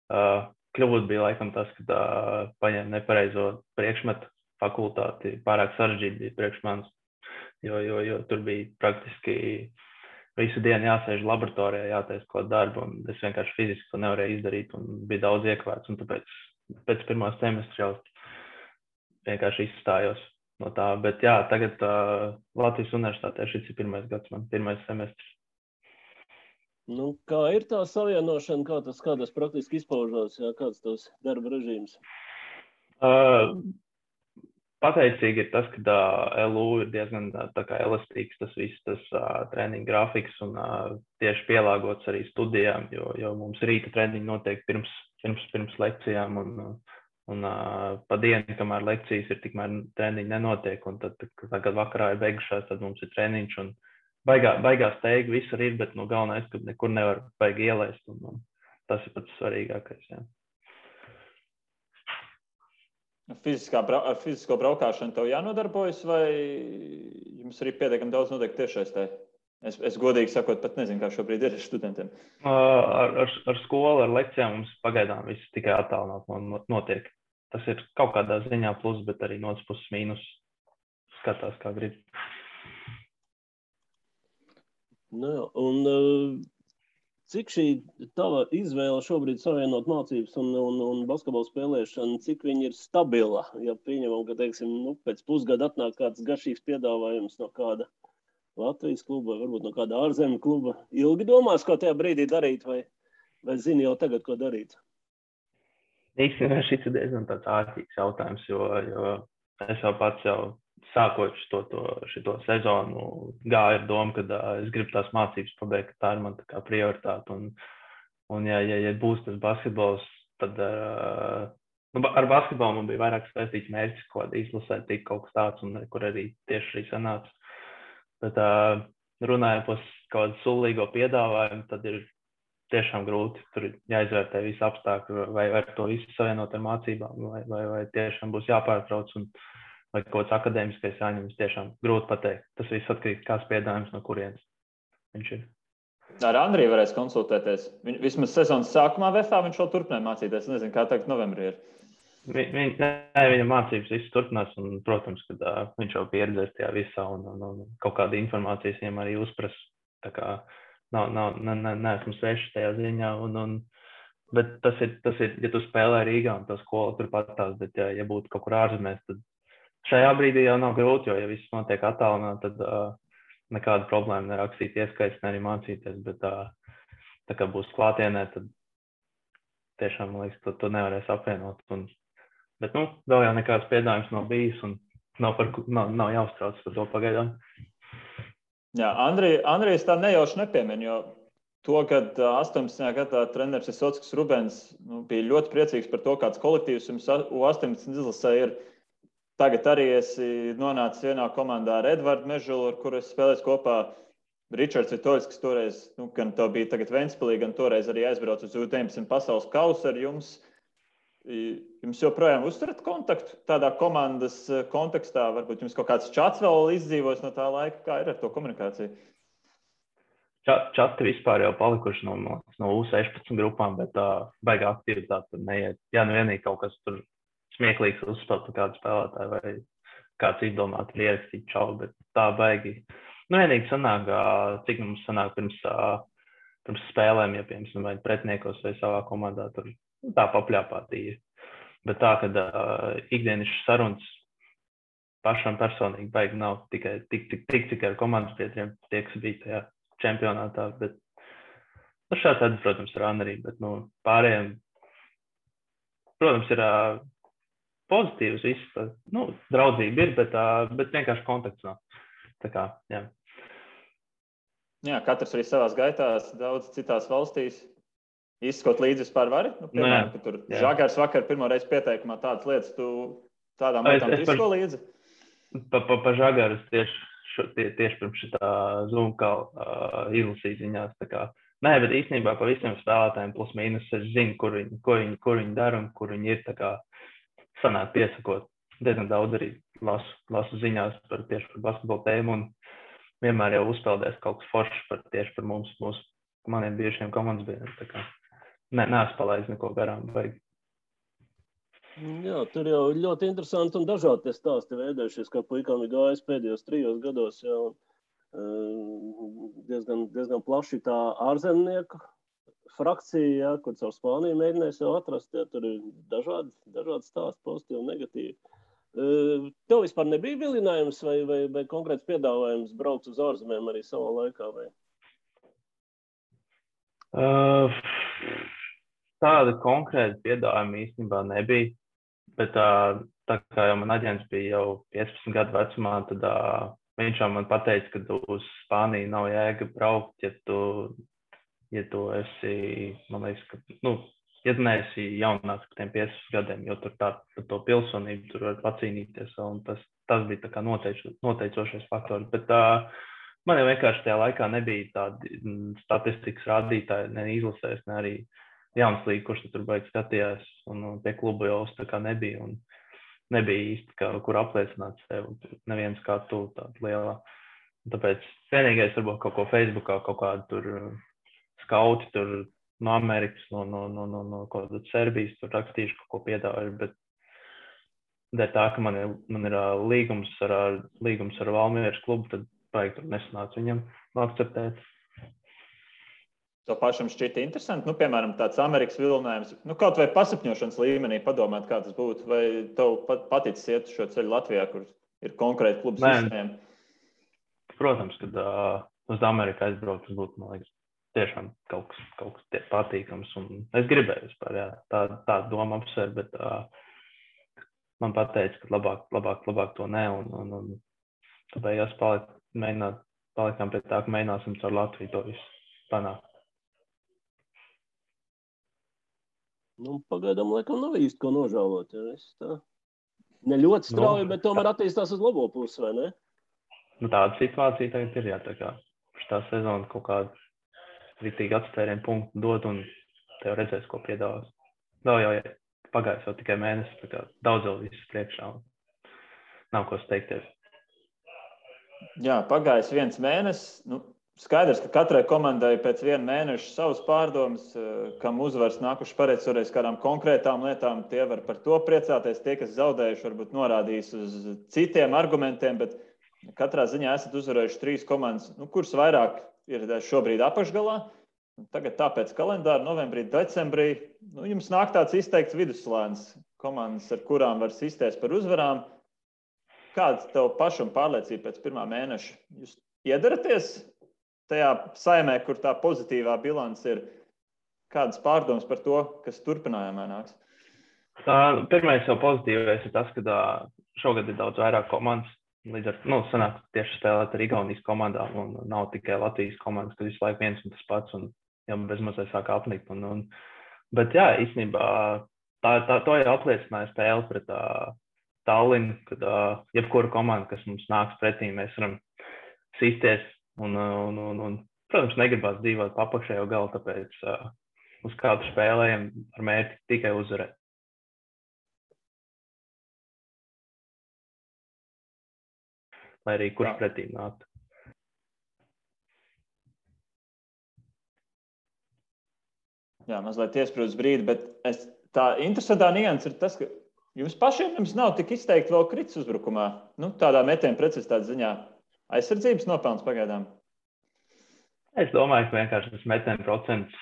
Kļūda bija, laikam, tas, kad paņēma nepareizo priekšmetu fakultāti, pārāk sarežģīti bija priekš manis, jo tur bija praktiski visu dienu jāsēž laboratorijā, jātaisa kaut darbu, un es vienkārši fiziski to nevarēju izdarīt, un bija daudz iekavēts, un tāpēc pēc pirmā semestra jau vienkārši izstājos no tā. Bet jā, tagad Latvijas universitātē šis ir pirmais gads, man pirmais semestrs. Nu, kā ir tā savienošana, kā tas praktiski izpaužās, jā, kāds tavs darba režīms? Pateicīgi ir tas, ka LU ir diezgan tā kā elastīgs tas viss, tas treniņu grafiks un tieši pielāgots arī studijām, jo mums rīta treniņi notiek pirms lekcijām un pa dienu, kamēr lekcijas ir, tikmēr treniņi nenotiek, un tad, kad vakarā ir beigušās, tad mums ir treniņš un baigās teigi, visur ir, bet galvenais, ka nekur nevar baigi ielaist, un tas ir pats svarīgākais, jā. Ar fizisko braukšanu tev jānodarbojas, vai jums arī pietiekami daudz notiek tiešsaistē? Es godīgi sakot, pat nezinu, kā šobrīd ir ar studentiem. Ar skolu, ar lekcijām mums pagaidām viss tikai attālināt notiek. Tas ir kaut kādā ziņā plus, bet arī no otras puses mīnus. Skatās, kā grib. Un cik šī tava izvēle šobrīd savienot mācības un basketbolu spēlēšanu, cik viņa ir stabila? Ja pieņemam, ka, teiksim, pēc pusgada atnāk kāds garšīgs piedāvājums no kāda Latvijas kluba, vai varbūt no kāda ārzemju kluba, ilgi domās, ko tajā brīdī darīt, vai zini jau tagad, ko darīt? Īstenībā šis ir diezgan tāds ārtīgs jautājums, jo es jau pats sākot šito sezonu gāju ar domu, ka es gribu tās mācības pabeigt, ka tā ir man tā kā prioritāte. Un ja būs tas basketbols, tad ar basketbolu man bija vairāk saistīts mērķis, ko izlasēt tik kaut kas tāds, un kur arī tieši arī sanāca. Bet runājot par kaut kādu sulīgo piedāvājumu, tad ir tiešām grūti. Tur jāizvērtē visi apstākļi, vai ar to visu savienot ar mācībām, vai tiešām būs jāpārtrauc un vai kaut kāds akadēmiskais jāņemas, tiešām grūti pateikt. Tas viss atkarīgs, kāds piedāvājums no kurienes viņš ir. Ar Andriju varēs konsultēties. Vismaz sezonas sākumā VFā viņš vēl turpināja mācīties. Nezinu, kā tagad novembrī ir. Viņa mācības viss turpinās, un, protams, kad viņš jau pieredzēs tajā visā un kaut kāda informācijas viņam arī uzpras. Tā kā neesmu sveši tajā ziņā. Bet tas ir, ja tu spēlē Rīgā un tā skola turpat tās, bet ja būtu kaut kur ārzemēs, tad šajā brīdī jau nav grūti, jo ja viss notiek attālināt, tad nekāda problēma nerakstīt ieskaits, ne arī mācīties, bet tā kā būs klātienē, tad tiešām, man liekas, to nevarēs apvienot. Bet, vēl jau nekāds piedāvājums nav bijis un nav jāuztrauc par to pagaidām. Jā, Andrijs tā nejauši nepiemin, jo to, kad 18. gadā treneris Visockis Rubens bija ļoti priecīgs par to, kāds kolektīvs jums U18 izlasē ir. Tagad arī esi nonācis vienā komandā ar Edvardu Mežulu, ar kuru es spēlēju kopā. Ričards Vitoļs, kas toreiz, gan to bija tagad Ventspilī, gan toreiz arī aizbrauc uz U19 pasaules kausu ar jums. Jums joprojām uzturat kontaktu tādā komandas kontekstā? Varbūt jums kaut kāds čats vēl izdzīvos no tā laika? Kā ir ar to komunikāciju? Čati vispār jau palikuši no U16 grupām, bet baigā aktivitāte tur neiet. Jā, vienīgi kaut kas tur smieklīgs uzspēlēt par kādu spēlētāju vai kāds izdomāt ir ierakstīt čau, bet tā baigi. Vienīgi sanāk, cik mums sanāk pirms spēlēm, ja piemēram vai pretniekos vai savā komandā, tur tā papļāpātīja. Bet tā, kad ikdienišas sarunas pašam personīgi baigi nav tikai tik ar komandas biedriem, tie, kas bija tajā čempionātā, bet šāds, protams, ar Anrī, bet pārējiem protams, ir pozitīvs viss. Draudzība ir, bet vienkārši kontakts nav. Tā kā, jā. Jā, katrs arī savās gaitās, daudz citās valstīs. Izskot līdzi vispār vari? Piemēram, ka tur Žagars vakar pirmo reizi pieteikumā tādas lietas, tu tādām lietām izsko līdzi? Pa Žagaru tieši pirms šitā Zoom izlasīt ziņās. Nē, bet īstenībā pa visiem spēlētājiem plus mīnus es zinu, kur viņi dara un kur viņi ir. Sanāk piesakot. Diezgan daudz arī lasu ziņās tieši par basketbolu tēmu un vienmēr jau uzpeldēs kaut kas foršs tieši par maniem bijušiem komandas biedriem. Neesmu palaidis neko garām. Jā, tur jau ļoti interesanti un dažādi stāsti veidojušies, kā puikām ir gājis pēdējos 3 gados. Jā, diezgan plaši tā ārzemnieku frakcija, jā, kur caur Spāniju mēģinājis jau atrast. Jā, tur ir dažādi stāsti, pozitīvi un negatīvi. Tev vispār nebija vilinājums vai konkrēts piedāvājums braukt uz ārzemēm arī savā laikā? Vai? Tāda konkrēta piedāvājuma īstenībā nebija, bet tā kā jau man aģents bija jau 15 gadu vecumā, tad viņš jau man pateica, ka uz Spāniju nav jēga braukt, ja tu esi, man liekas, ka, ja tu neesi jaunāks par tiem 15 gadiem, jo tur par to pilsonību tur var pacīnīties, un tas bija tā kā noteicošais faktors, bet man jau vienkārši tajā laikā nebija tādi statistikas rādītāji, ne izlasēs, ne arī jauns līga, kurš tur baigi skatījās, un pie klubu jau tā kā nebija, un nebija īsti, kur apliecināt sevi, neviens kā tu tāda lielā. Tāpēc vienīgais varbūt kaut ko Facebookā, kaut kādu tur skauti tur no Amerikas, no kaut kāda Serbijas, tur rakstīšu kaut ko piedāvāju, bet dēļ tā, ka man ir līgums ar Valmieras klubu, tad baigi tur nesanāca viņam akceptēt. To pašam šķita interesanti. Piemēram, tāds Amerikas vilinājums, kaut vai pasapņošanas līmenī padomāt, kā tas būtu, vai tev paticis iet šo ceļu Latvijā, kur ir konkrēti klubu sistēma? Protams, kad uz Ameriku aizbraukt, tas būtu, man liekas, tiešām kaut kas patīkams. Un es gribēju vispār, jā, tā doma apsver, bet man pateica, ka labāk to ne, un tāpēc palikām pie tā, ka mēģināsim caur Latviju to visu panākt. Pagaidām, laikam, nav īsti ko nožēlot. Ja? Ne ļoti strauji, bet tomēr attīstās uz labo pusi, vai ne? Tāda situācija tagad ir, jā, tā kā šitā sezona kaut kādu ritīgi atstērienu punktu dod, un tev redzēs, ko piedāvās. Vēl jau pagājis jau tikai mēnesis, tā kā daudz vēl viss priekšā, un nav ko steigties. Jā, pagājis 1 mēnesis. Skaidrs, ka katrai komandai pēc 1 mēneša savas pārdomas, kam uzvars nākuši pareicoreiz kādām konkrētām lietām, tie var par to priecāties. Tie, kas zaudējuši, varbūt norādījis uz citiem argumentiem, bet katrā ziņā esat uzvarējuši 3 komandas, kuras vairāk ir šobrīd apakšgalā. Tagad tāpēc kalendāra novembrī, decembrī, jums nāk tāds izteikts vidusslānis komandas, ar kurām var sisties par uzvarām. Kāda tev pašam pārliecība pēc 1. mēneša? Jūs iedaraties tajā saimē, kur tā pozitīvā bilance ir? Kādas pārdomas par to, kas turpinājumā nāks? Pirmais jau pozitīvais ir tas, ka šogad ir daudz vairāk komandas. Līdz ar sanāk tieši spēlēt ar Igaunijas komandām, un nav tikai Latvijas komandas, kad visu laiku viens un tas pats, un jau bezmazliet sāk apnikt. Bet jā, īstenībā to jau apliecināja spēle pret Tallinu, kad jebkura komanda, kas mums nāks pretī, mēs varam sisties. Un, protams, negribās dzīvot apakšējo galu, tāpēc uz kādu spēlējam ar mērķi tikai uzvarēt. Lai arī kurš pretī nāktu. Jā, mazliet iesprūdis brīdi, bet tā interesantā nianse ir tas, ka jums pašiem nav tik izteikti vēl kritis uzbrukumā. Tādā metiena precizitātes ziņā. Aizsardzības nopelns pagaidām? Es domāju, ka vienkārši tas metiena procents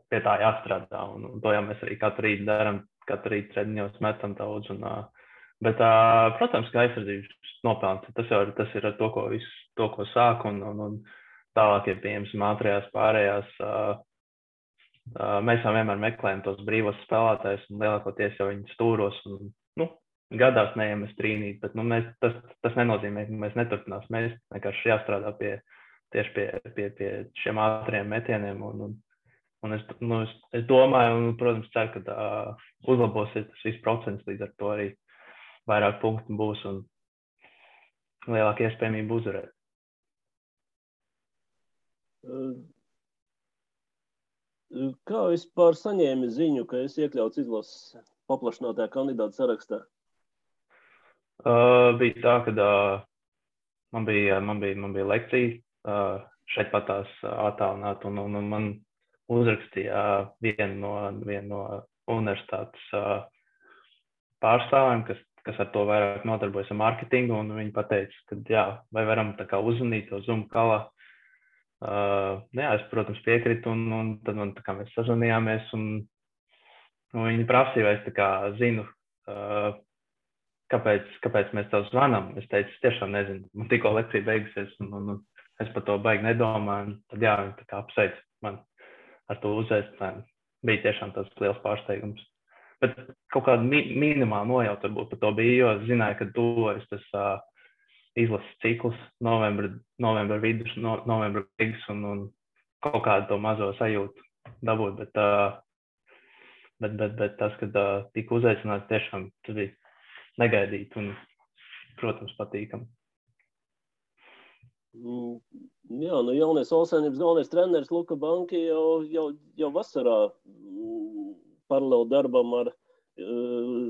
pie tā jāstrādā. Un to jau mēs arī katru rītu darām, katru rītu treniņos metam daudz. Bet, protams, ka aizsardzības nopelns, tas ir ar to, ko sāk, un tālāk ir pieejams ātrajās pārējās Mēs jau vienmēr meklējam tos brīvos spēlētājus un lielākoties jau viņu stūros un, gadās neiemest trīnīt, bet, tas nenozīmē, ka mēs neturpinās. Mēs vienkārši jāstrādā tieši pie šiem ātriem metieniem un es domāju un, protams, ceru, ka uzlabosies tas viss procents, līdz ar to arī vairāk punktu būs un lielāka iespējamība uzvarēt. Kā vispār saņēmi ziņu, ka esi iekļauts izlases paplašinātajā kandidātu sarakstā? Bija tā, ka man bija lekcija šeit patās attālināt un man uzrakstīja vienu no universitātes pārstāvjiem, kas ar to vairāk nodarbojas ar marketingu, un viņi pateica, ka jā, vai varam tā kā uzzvanīt to Zoom kalā. Es, protams, piekritu, un tad man tā kā mēs sazvanījāmies, un viņi prasīja, vai es tā kā zinu, kāpēc mēs tev zvanām. Es teicu, es tiešām nezinu, man tikko lekcija beigusies, un es par to baigi nedomāju, un tad jā, viņi tā kā apsveic man ar to uzaicinājumu. Bija tiešām tas liels pārsteigums. Bet kaut kāda minimāla nojauta varbūt par to bija, jo es zināju, ka tuvojas tas izlases cikls, novembra vidus, novembra beigas un kaut kādu to mazo sajūtu dabūt, bet tas, kad tika uzaicināts, tiešām tas bija negaidīt un, protams, patīkam. Jā, jaunais Olsainības galvenais treneris Luka Banki jau vasarā paralēli darbam ar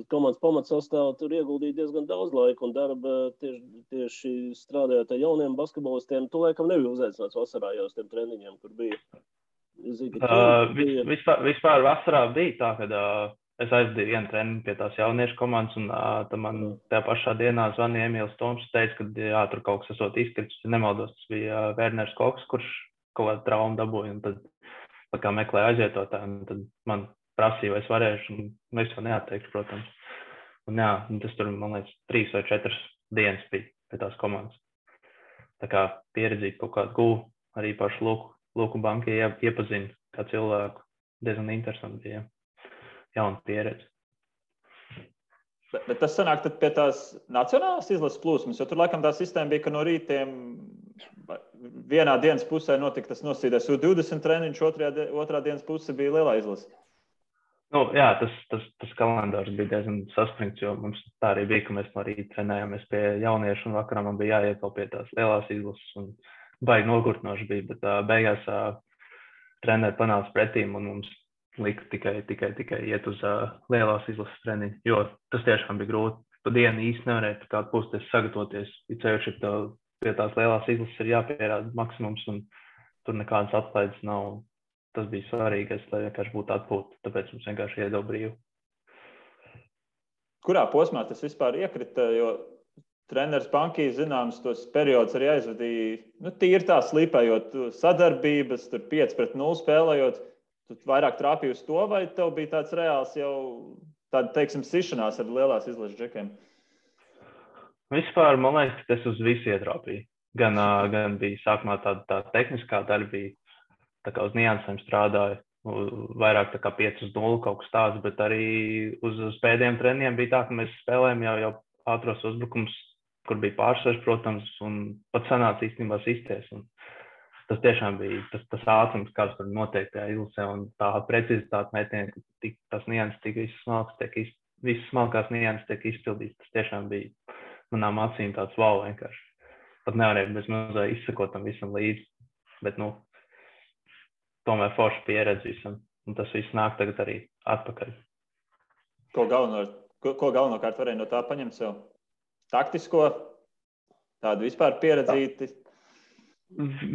komandas pamatsastāvu tur ieguldīja diezgan daudz laika un darba tieši strādājot ar jauniem basketbolistiem. Tu laikam nebija uzaicināts vasarā jau uz tiem treniņiem, kur bija. Vispār vasarā bija tā, kad es aizdīju vienu treniņu pie tās jauniešu komandas un tad man tajā pašā dienā zvanīja Emīls Toms, teica, ka jā, tur kaut kas esot izkritis, ja nemaldos, tas bija Werners Koks, kurš kaut kādu traumu dabūja un tad tā kā meklēja aizietotāju un tad man prasīja, vai es varēšu, un es jau neatteikšu, protams. Un jā, tas tur, man liekas, 3 vai 4 dienas bija pie tās komandas. Tā kā pieredzīt kaut kādu gūvu, arī pašu Luku Banki iepazinu kā cilvēku. Diezgan interesanti bija. Jauna pieredze. Bet tas sanāk tad pie tās nacionālās izlases plūsmas, jo tur laikam tā sistēma bija, ka no rītiem vienā dienas pusē notika tas nosīdēs U20 treniņš, otrā dienas puse bija lielā izlase. Jā, tas kalendārs bija diezgan saspringts, jo mums tā arī bija, ka mēs no rīta trenējāmies pie jauniešu un vakarā man bija jāiet vēl pie tās lielās izlases un baigi nogurtnoši bija, bet beigās treneri panāca pretīm un mums lika tikai iet uz lielās izlases treniņu, jo tas tiešām bija grūti. Pa dienu īsti nevarēja kādu puses sagatavoties, ja ceļš pie tās lielās izlases ir jāpierāda maksimums un tur nekādas atlaides nav. Tas bija svarīgais, lai vienkārši būtu atpūta, tāpēc mums vienkārši iedod brīvu. Kurā posmā tas vispār iekrita, jo treneris Banki zināms tos periodus arī aizvadīja, tīri tā slīpējot sadarbības, tur 5-0 spēlējot, tu vairāk trāpīji uz to, vai tev bija tāds reāls jau tāda, teiksim, sišanās ar lielās izlases džekiem? Vispār, man liekas, tas uz visu ietrāpīja. Gan bija sākumā tā tehniskā daļa bija, tā kā uz niansēm strādāju, vairāk tā kā 5-0 kaut kas tāds, bet arī uz pēdējiem treniņiem bija tā, ka mēs spēlējam jau ātros uzbrukums, kur bija pārsvars, protams, un pat sanāca īstenībā sistēs. Un tas tiešām bija tas ātrums, kāds tur noteikti izlasē, un tā precizitāte metienā, ka tas nianses tik visas smalkās nianses tiek izpildīts. Tas tiešām bija manām acīm tāds wow vienkārši. Pat nevarēja bez mazā izsakot tam visam līdzi, bet, tomēr forša pieredze visam, un tas viss nāk tagad arī atpakaļ. Ko galvenokārt varēja no tā paņemt sev? Taktisko, tādu vispār pieredzīti?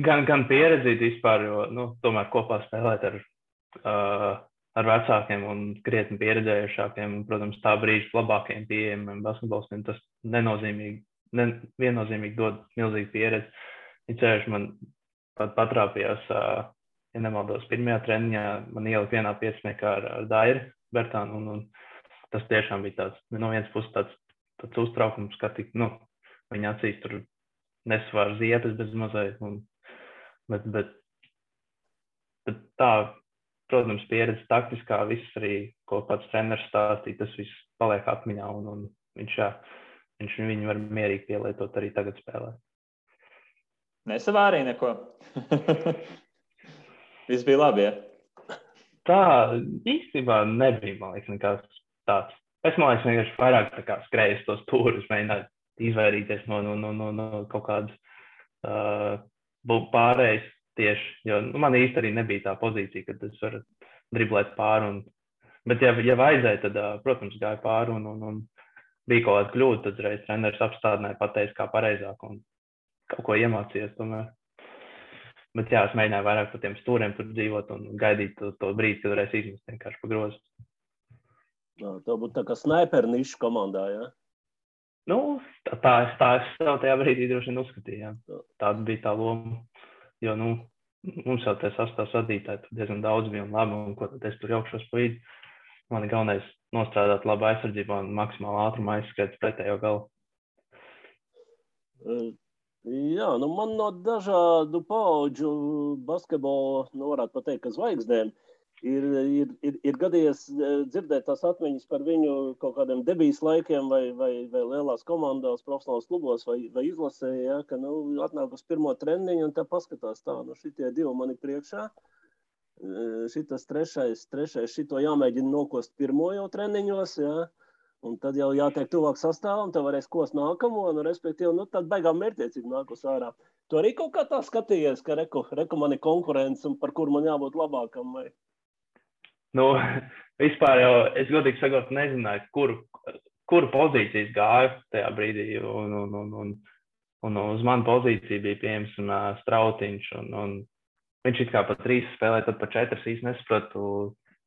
Gan pieredzīti vispār, jo tomēr kopā spēlēt ar vecākiem un krietni pieredzējušākiem, un, protams, tā brīža labākajiem pieejamiem basketbolistiem, tas viennozīmīgi dod milzīgu pieredzi. Ceļš man pat patrāpījās, ja nemaldos, pirmajā treniņā man ielika vienā pieciniekā ar Dairi Bertānu, un tas tiešām bija tāds, no vienas puses tāds uztraukums, ka viņa acīs tur nesvār ziepes bez mazai, bet tā protams, pieredze taktiskā, viss arī, ko pats treneris stāstīja, tas viss paliek atmiņā, un viņš viņu var mierīgi pielietot arī tagad spēlē. Nesavārīja neko? Viss bija labi, ja? Tā īstenībā nebija, man liekas, nekās tāds. Es, man liekas, vienkārši vairāk tā kā skrēju tos stūrus, mēģināju izvairīties no kaut kādas pārējas tieši, jo man īsti arī nebija tā pozīcija, kad es varu driblēt pāri. Bet ja vajadzēja, tad, protams, gāja pāri un bija kaut kāda kļūda, tad reiz treneris apstādināja, pateica, kā pareizāk un kaut ko iemācījies tomēr. Bet jā, es mēģināju vairāk par tiem stūriem tur dzīvot un gaidīt to brīdi, kad varēs izmest vienkārši pa grozu. Tā būtu tā kā snaiperu nišu komandā, jā? Nu, tā es jau tajā brīdī droši vien uzskatīju, jā. Tāda bija tā loma, jo, mums jau tie sastāvs vadītāji tur diezgan daudz bija un labi, un ko tad es tur jaukšos pa vidi. Man ir galvenais nostrādāt labu aizsardzību un maksimāli ātrumu aizskriet pretējo galu. Jā, man no dažādu paudžu basketbola, varētu pateikt, ka zvaigznēm ir gadījies dzirdēt tās atmiņas par viņu kaut kādiem debijas laikiem vai lielās komandās, profesionālos klubos vai izlasē, ja, ka atnāk uz pirmo treniņu un tā paskatās tā, šitie divi mani priekšā. Šitas trešais, šito jāmēģina nokost pirmo jau treniņos, ja, un tad jau jātiek tuvāk sastāvam, tad varēs kost nākamo, respektīvi, tad beigām mērķiecīgi nākos ārā. Tu arī kaut kā tā skatījies, ka reku man ir konkurence un par kur man jābūt labākam, vai? Vispār jau, es godīgi sakot, nezināju, kuru pozīcijas gāju tajā brīdī, un uz manu pozīciju bija pieņemts Strautiņš, un viņš it kā pa 3 spēlē, tad pa 4 īsti nesapratu,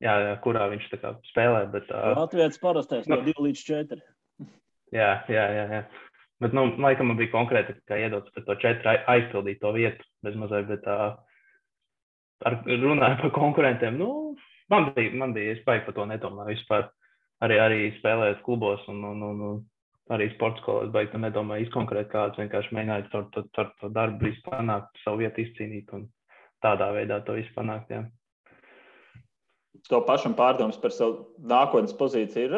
jā, kurā viņš tā kā spēlē, bet... Latvijas parastais no 2 līdz 4. Jā. Bet, laikam man bija konkrēti, kā iedots par to 4 aizpildīt to vietu bez mazai, bet runāju par konkurentiem, man bija, es baigi par to nedomāju vispār. Arī spēlējot klubos un arī sporta skolās baigi to nedomāju izkonkrēt kāds, vienkārši mēģināju ar to darbu visu panākt, savu vietu izcīnīt un tādā veidā to visu panākt, jā. To pašam pārdomas par savu nākotnes pozīciju ir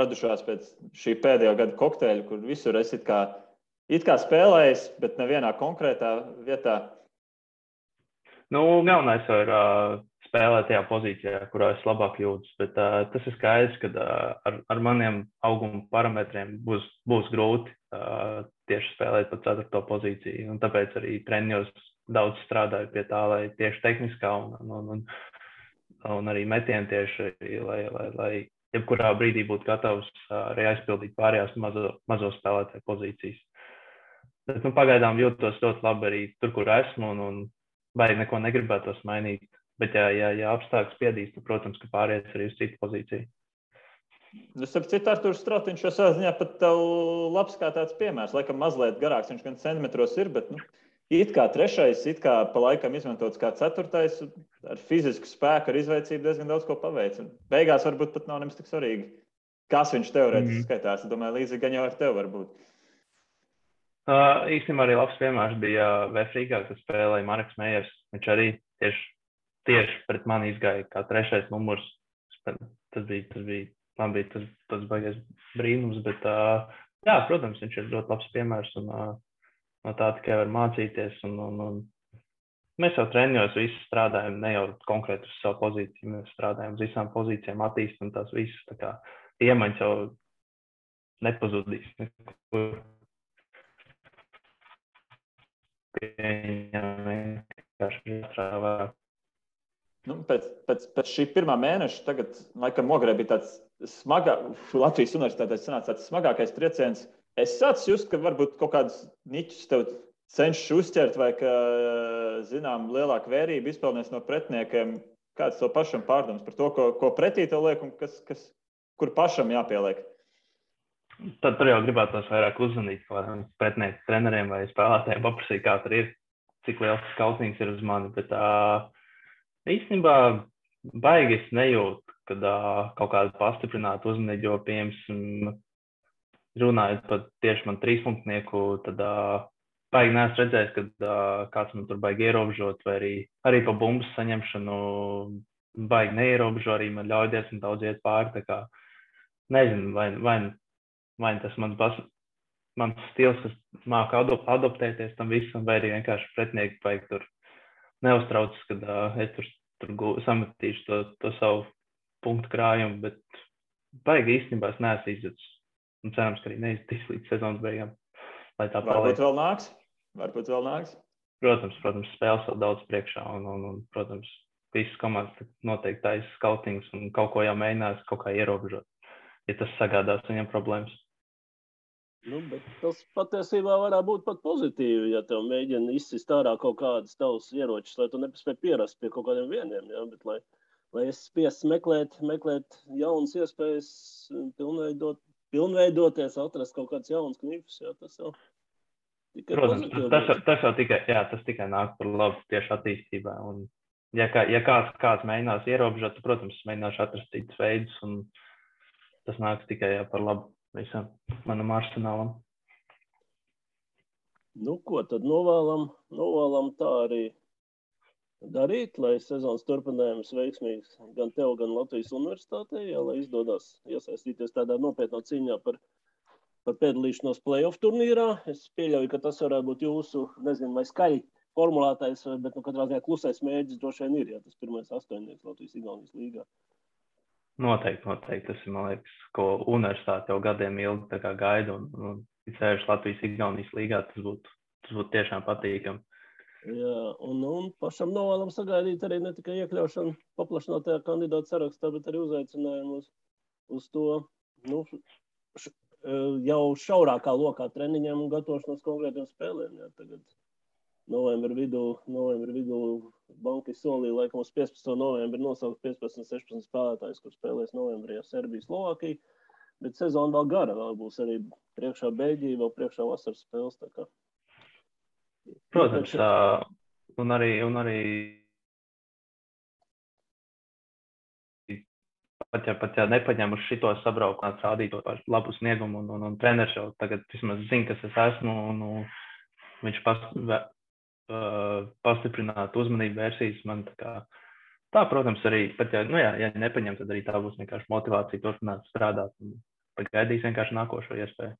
radušās pēc šī pēdējā gada kokteļa, kur visur es it kā spēlējis, bet nevienā konkrētā vietā? Galvenais ir spēlēt tajā pozīcijā, kurā es labāk jūtas, bet tas ir skaidrs, ka ar maniem auguma parametriem būs grūti tieši spēlēt pa 4. pozīciju, un tāpēc arī treniņos daudz strādāju pie tā, lai tieši tehniskā un arī metieni tieši, lai jebkurā brīdī būtu gatavs arī aizpildīt pārējās mazo spēlētāju pozīcijas. Bet pagaidām jūtos ļoti labi arī tur, kur esmu, un baigi neko negribētos mainīt. Bet ja apstākļi spiedīs, tad, protams, ka pārējais arī uz citu pozīciju. Starp citu, Arturs Strautiņš jau savā ziņā pat tev labs kā tāds piemērs. Laikam mazliet garāks, viņš gan centimetros ir, bet it kā 3, it kā pa laikam izmantots kā 4, ar fizisku spēku, ar izveicību diezgan daudz ko paveic. Beigās varbūt pat nav nemaz tik svarīgi, kas viņš teorētiski skaitās. Es domāju, līdzīgi gan jau ar tevi varbūt. Īstenībā arī labs piemērs bija Vēfrīgā, kas spēlēja Mareks Mejers. Viņš arī tieši pret mani izgāja kā 3. numurs. Tas bija tas baigies brīnums, bet jā, protams, viņš ir ļoti labs piemērs un no tā tikai var mācīties. Un mēs jau treniņos visi strādājam, ne jau konkrēti uz savu pozīciju, mēs strādājam uz visām pozīcijām, attīstam tās visas, tā kā iemaņas jau nepazudīs nekur. Pēc šī pirmā mēneša tagad, laikam, Ogrē bija tāds Latvijas universitātē sanāca tāds smagākais trieciens. Es sācu just, ka varbūt kaut kādas niķus tev cenšas uzķert vai ka, zinām, lielāka vērība izpelnēs no pretiniekiem. Kāds to pašam pārdoms par to, ko pretī tev liek un kur pašam jāpieliek? Tad tur jau gribētos vairāk uzzvanīt pretinieku treneriem vai spēlētājiem, paprasīt, kā tur ir, cik liels skautnings ir uz mani. Bet īstenībā baigi es nejūtu, kad kaut kādu pastiprinātu uzmanību, jo, piemēram, runājot par tieši man 3-punktnieku, tad baigi neesmu redzējis, kad kāds man tur baigi ierobežot, vai arī pa bumbas saņemšanu baigi neierobežo arī man ļauj diezgan daudz iet pāri. Tā kā nezinu, vai tas mans stils, kas māka adoptēties tam visam, vai arī vienkārši pretinieki baigi tur neuztraucas, kad es tur sametīšu to savu punktu krājumu, bet baigi īstenībā es neesmu izjutis. Un cerams, ka arī neizjutīs līdz sezonas beigām. Lai tā paliek. Varbūt vēl nāks. Protams, spēles vēl daudz priekšā un protams, visas komandas noteikti taisa skautings un kaut ko jau mēģinās kaut kā ierobežot, ja tas sagādās viņam problēmas. Bet tas patiesībā varētu būt pat pozitīvi, ja tev mēģina izsist ārā kaut kādas tavas ieročus, lai tu nepaspēj pierast pie kaut kādiem vieniem, ja? Bet lai es spiests meklēt jaunas iespējas, pilnveidoties, atrast kaut kāds jauns knifus, ja? Tas jau tikai pozitīvi. Tas tikai nāk par labu tieši attīstībā. Un, ja kāds mēģinās ierobežot, tad, protams, mēģināšu atrast citus veidus, un tas nāks tikai par labu visam manam arsenālam. Ko tad novēlam tā arī darīt, lai sezonas turpinājums veiksmīgs gan tev, gan Latvijas universitātē, lai izdodas iesaistīties tādā nopietnā cīņā par piedalīšanos play-off turnīrā. Es pieļauju, ka tas varētu būt jūsu, nezinu, vai skaļi formulētais, bet katrā ziņā klusais mērķis droši vien ir, ja tas pirmais 8. Latvijas-Igaunijas līgā. Noteikti. Tas ir, man liekas, ko universitāte jau gadiem ilgi tā kā gaida, un ceļš Latvijas-Igaunijas līgā, tas būtu tiešām patīkami. Jā, un pašam novēlam sagaidīt arī ne tikai iekļaušanu paplašinātajā kandidātu sarakstā, bet arī uzaicinājumu uz to, jau šaurākā lokā treniņiem un gatavošanos konkrētiem spēlēm. Jā, tagad novembra vidū banki solīja, laikam uz 15. novembri nosaukt 15-16 spēlētājus, kur spēlēs novembrī Serbija, Slovākija, bet sezona vēl gara, vēl būs arī priekšā Beļģija, vēl priekšā vasaras spēles, tā kā. Protams, un arī pat ja nepaņemuši šito sabraukumā, rādīt labu sniegumu, un treneris jau tagad vismaz zina, kas es esmu, un viņš pastiprināt uzmanību vērsīs man tā, protams, arī, pat ja nepaņem, tad arī tā būs vienkārši motivācija turpināt strādāt un pagaidīs vienkārši nākošo iespēju.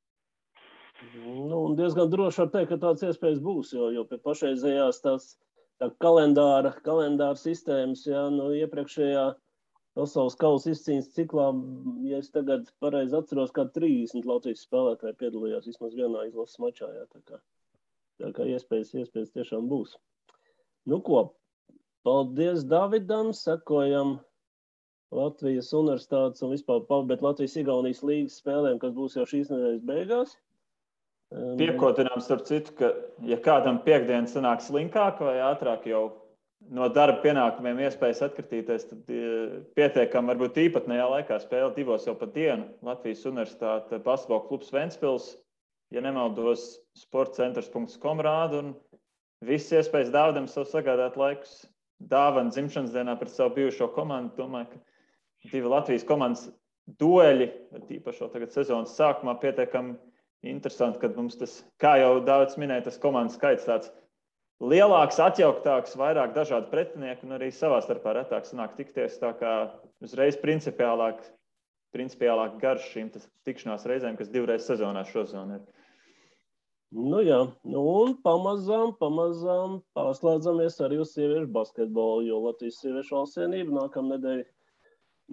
Un diezgan droši var teikt, ka tāds iespējas būs, jo pie pašreizējās tā kalendāra sistēmas, iepriekšējā pasaules kausa izcīņas ciklā, ja es tagad pareizi atceros, kā 30 Latvijas spēlētāji piedalījās vismaz vienā izlases mačā, tā kā iespējas tiešām būs. Paldies Davidam, sekojam Latvijas universitātes un vispār pabeigt Latvijas-Igaunijas līgas spēlēm, kas būs jau šīs nedēļas beigās. Piekotinām starp citu, ka ja kādam piekdien sanāk slinkāk vai ātrāk jau no darba pienākumiem iespējas atkritīties, tad pietiekam varbūt īpatnējā laikā spēle 2 jau pa dienu. Latvijas universitāte basketbola klubs Ventspils, ja nemaldos, sportcentrs.com rāda, un viss iespējas Dāvidam savu sagādāt laikus dāvana dzimšanas dienā pret savu bijušo komandu. Domāju, ka 2 Latvijas komandas dueļi, tīpaši tagad sezonas sākumā, pietiekami interesanti, kad mums tas, kā jau Dāvids minēja, tas komandas skaits tāds lielāks, atjauktāks, vairāk dažādu pretinieku un arī savā starpā retāk sanāk tikties, tā kā uzreiz principiālāk garš šīm tikšanās reizēm, kas 2 reizes sezonā šosezon ir. Un pamazām pārslēdzamies arī uz sieviešu basketbolu, jo Latvijas sieviešu valstsienība nākamnedēļ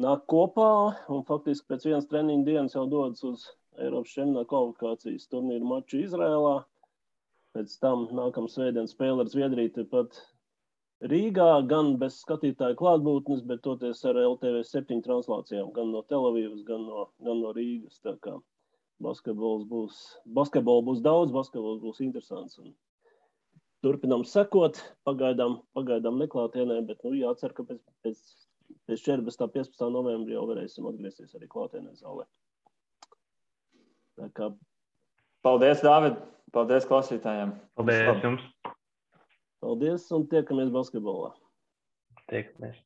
nāk kopā un faktiski pēc vienas treniņu dienas jau dodas uz Eiropas čempionāta kvalifikācijas turnīru maču Izrēlā. Pēc tam nākamā svētdien spēle ar Zviedriju tepat Rīgā, gan bez skatītāju klātbūtnes, bet toties ar LTV 7 translācijām, gan no Telavīvas, gan no Rīgas. Tā kā basketbols būs daudz, basketbols būs interesants. Un turpinām sekot, pagaidām neklātienē, bet jācer, ka pēc 14. 15. novembrī jau varēsim atgriezties arī klātienē zālē. Paldies, Dāvid! Paldies klausītājiem! Paldies jums! Paldies un tiekamies basketbolā! Tiekamies!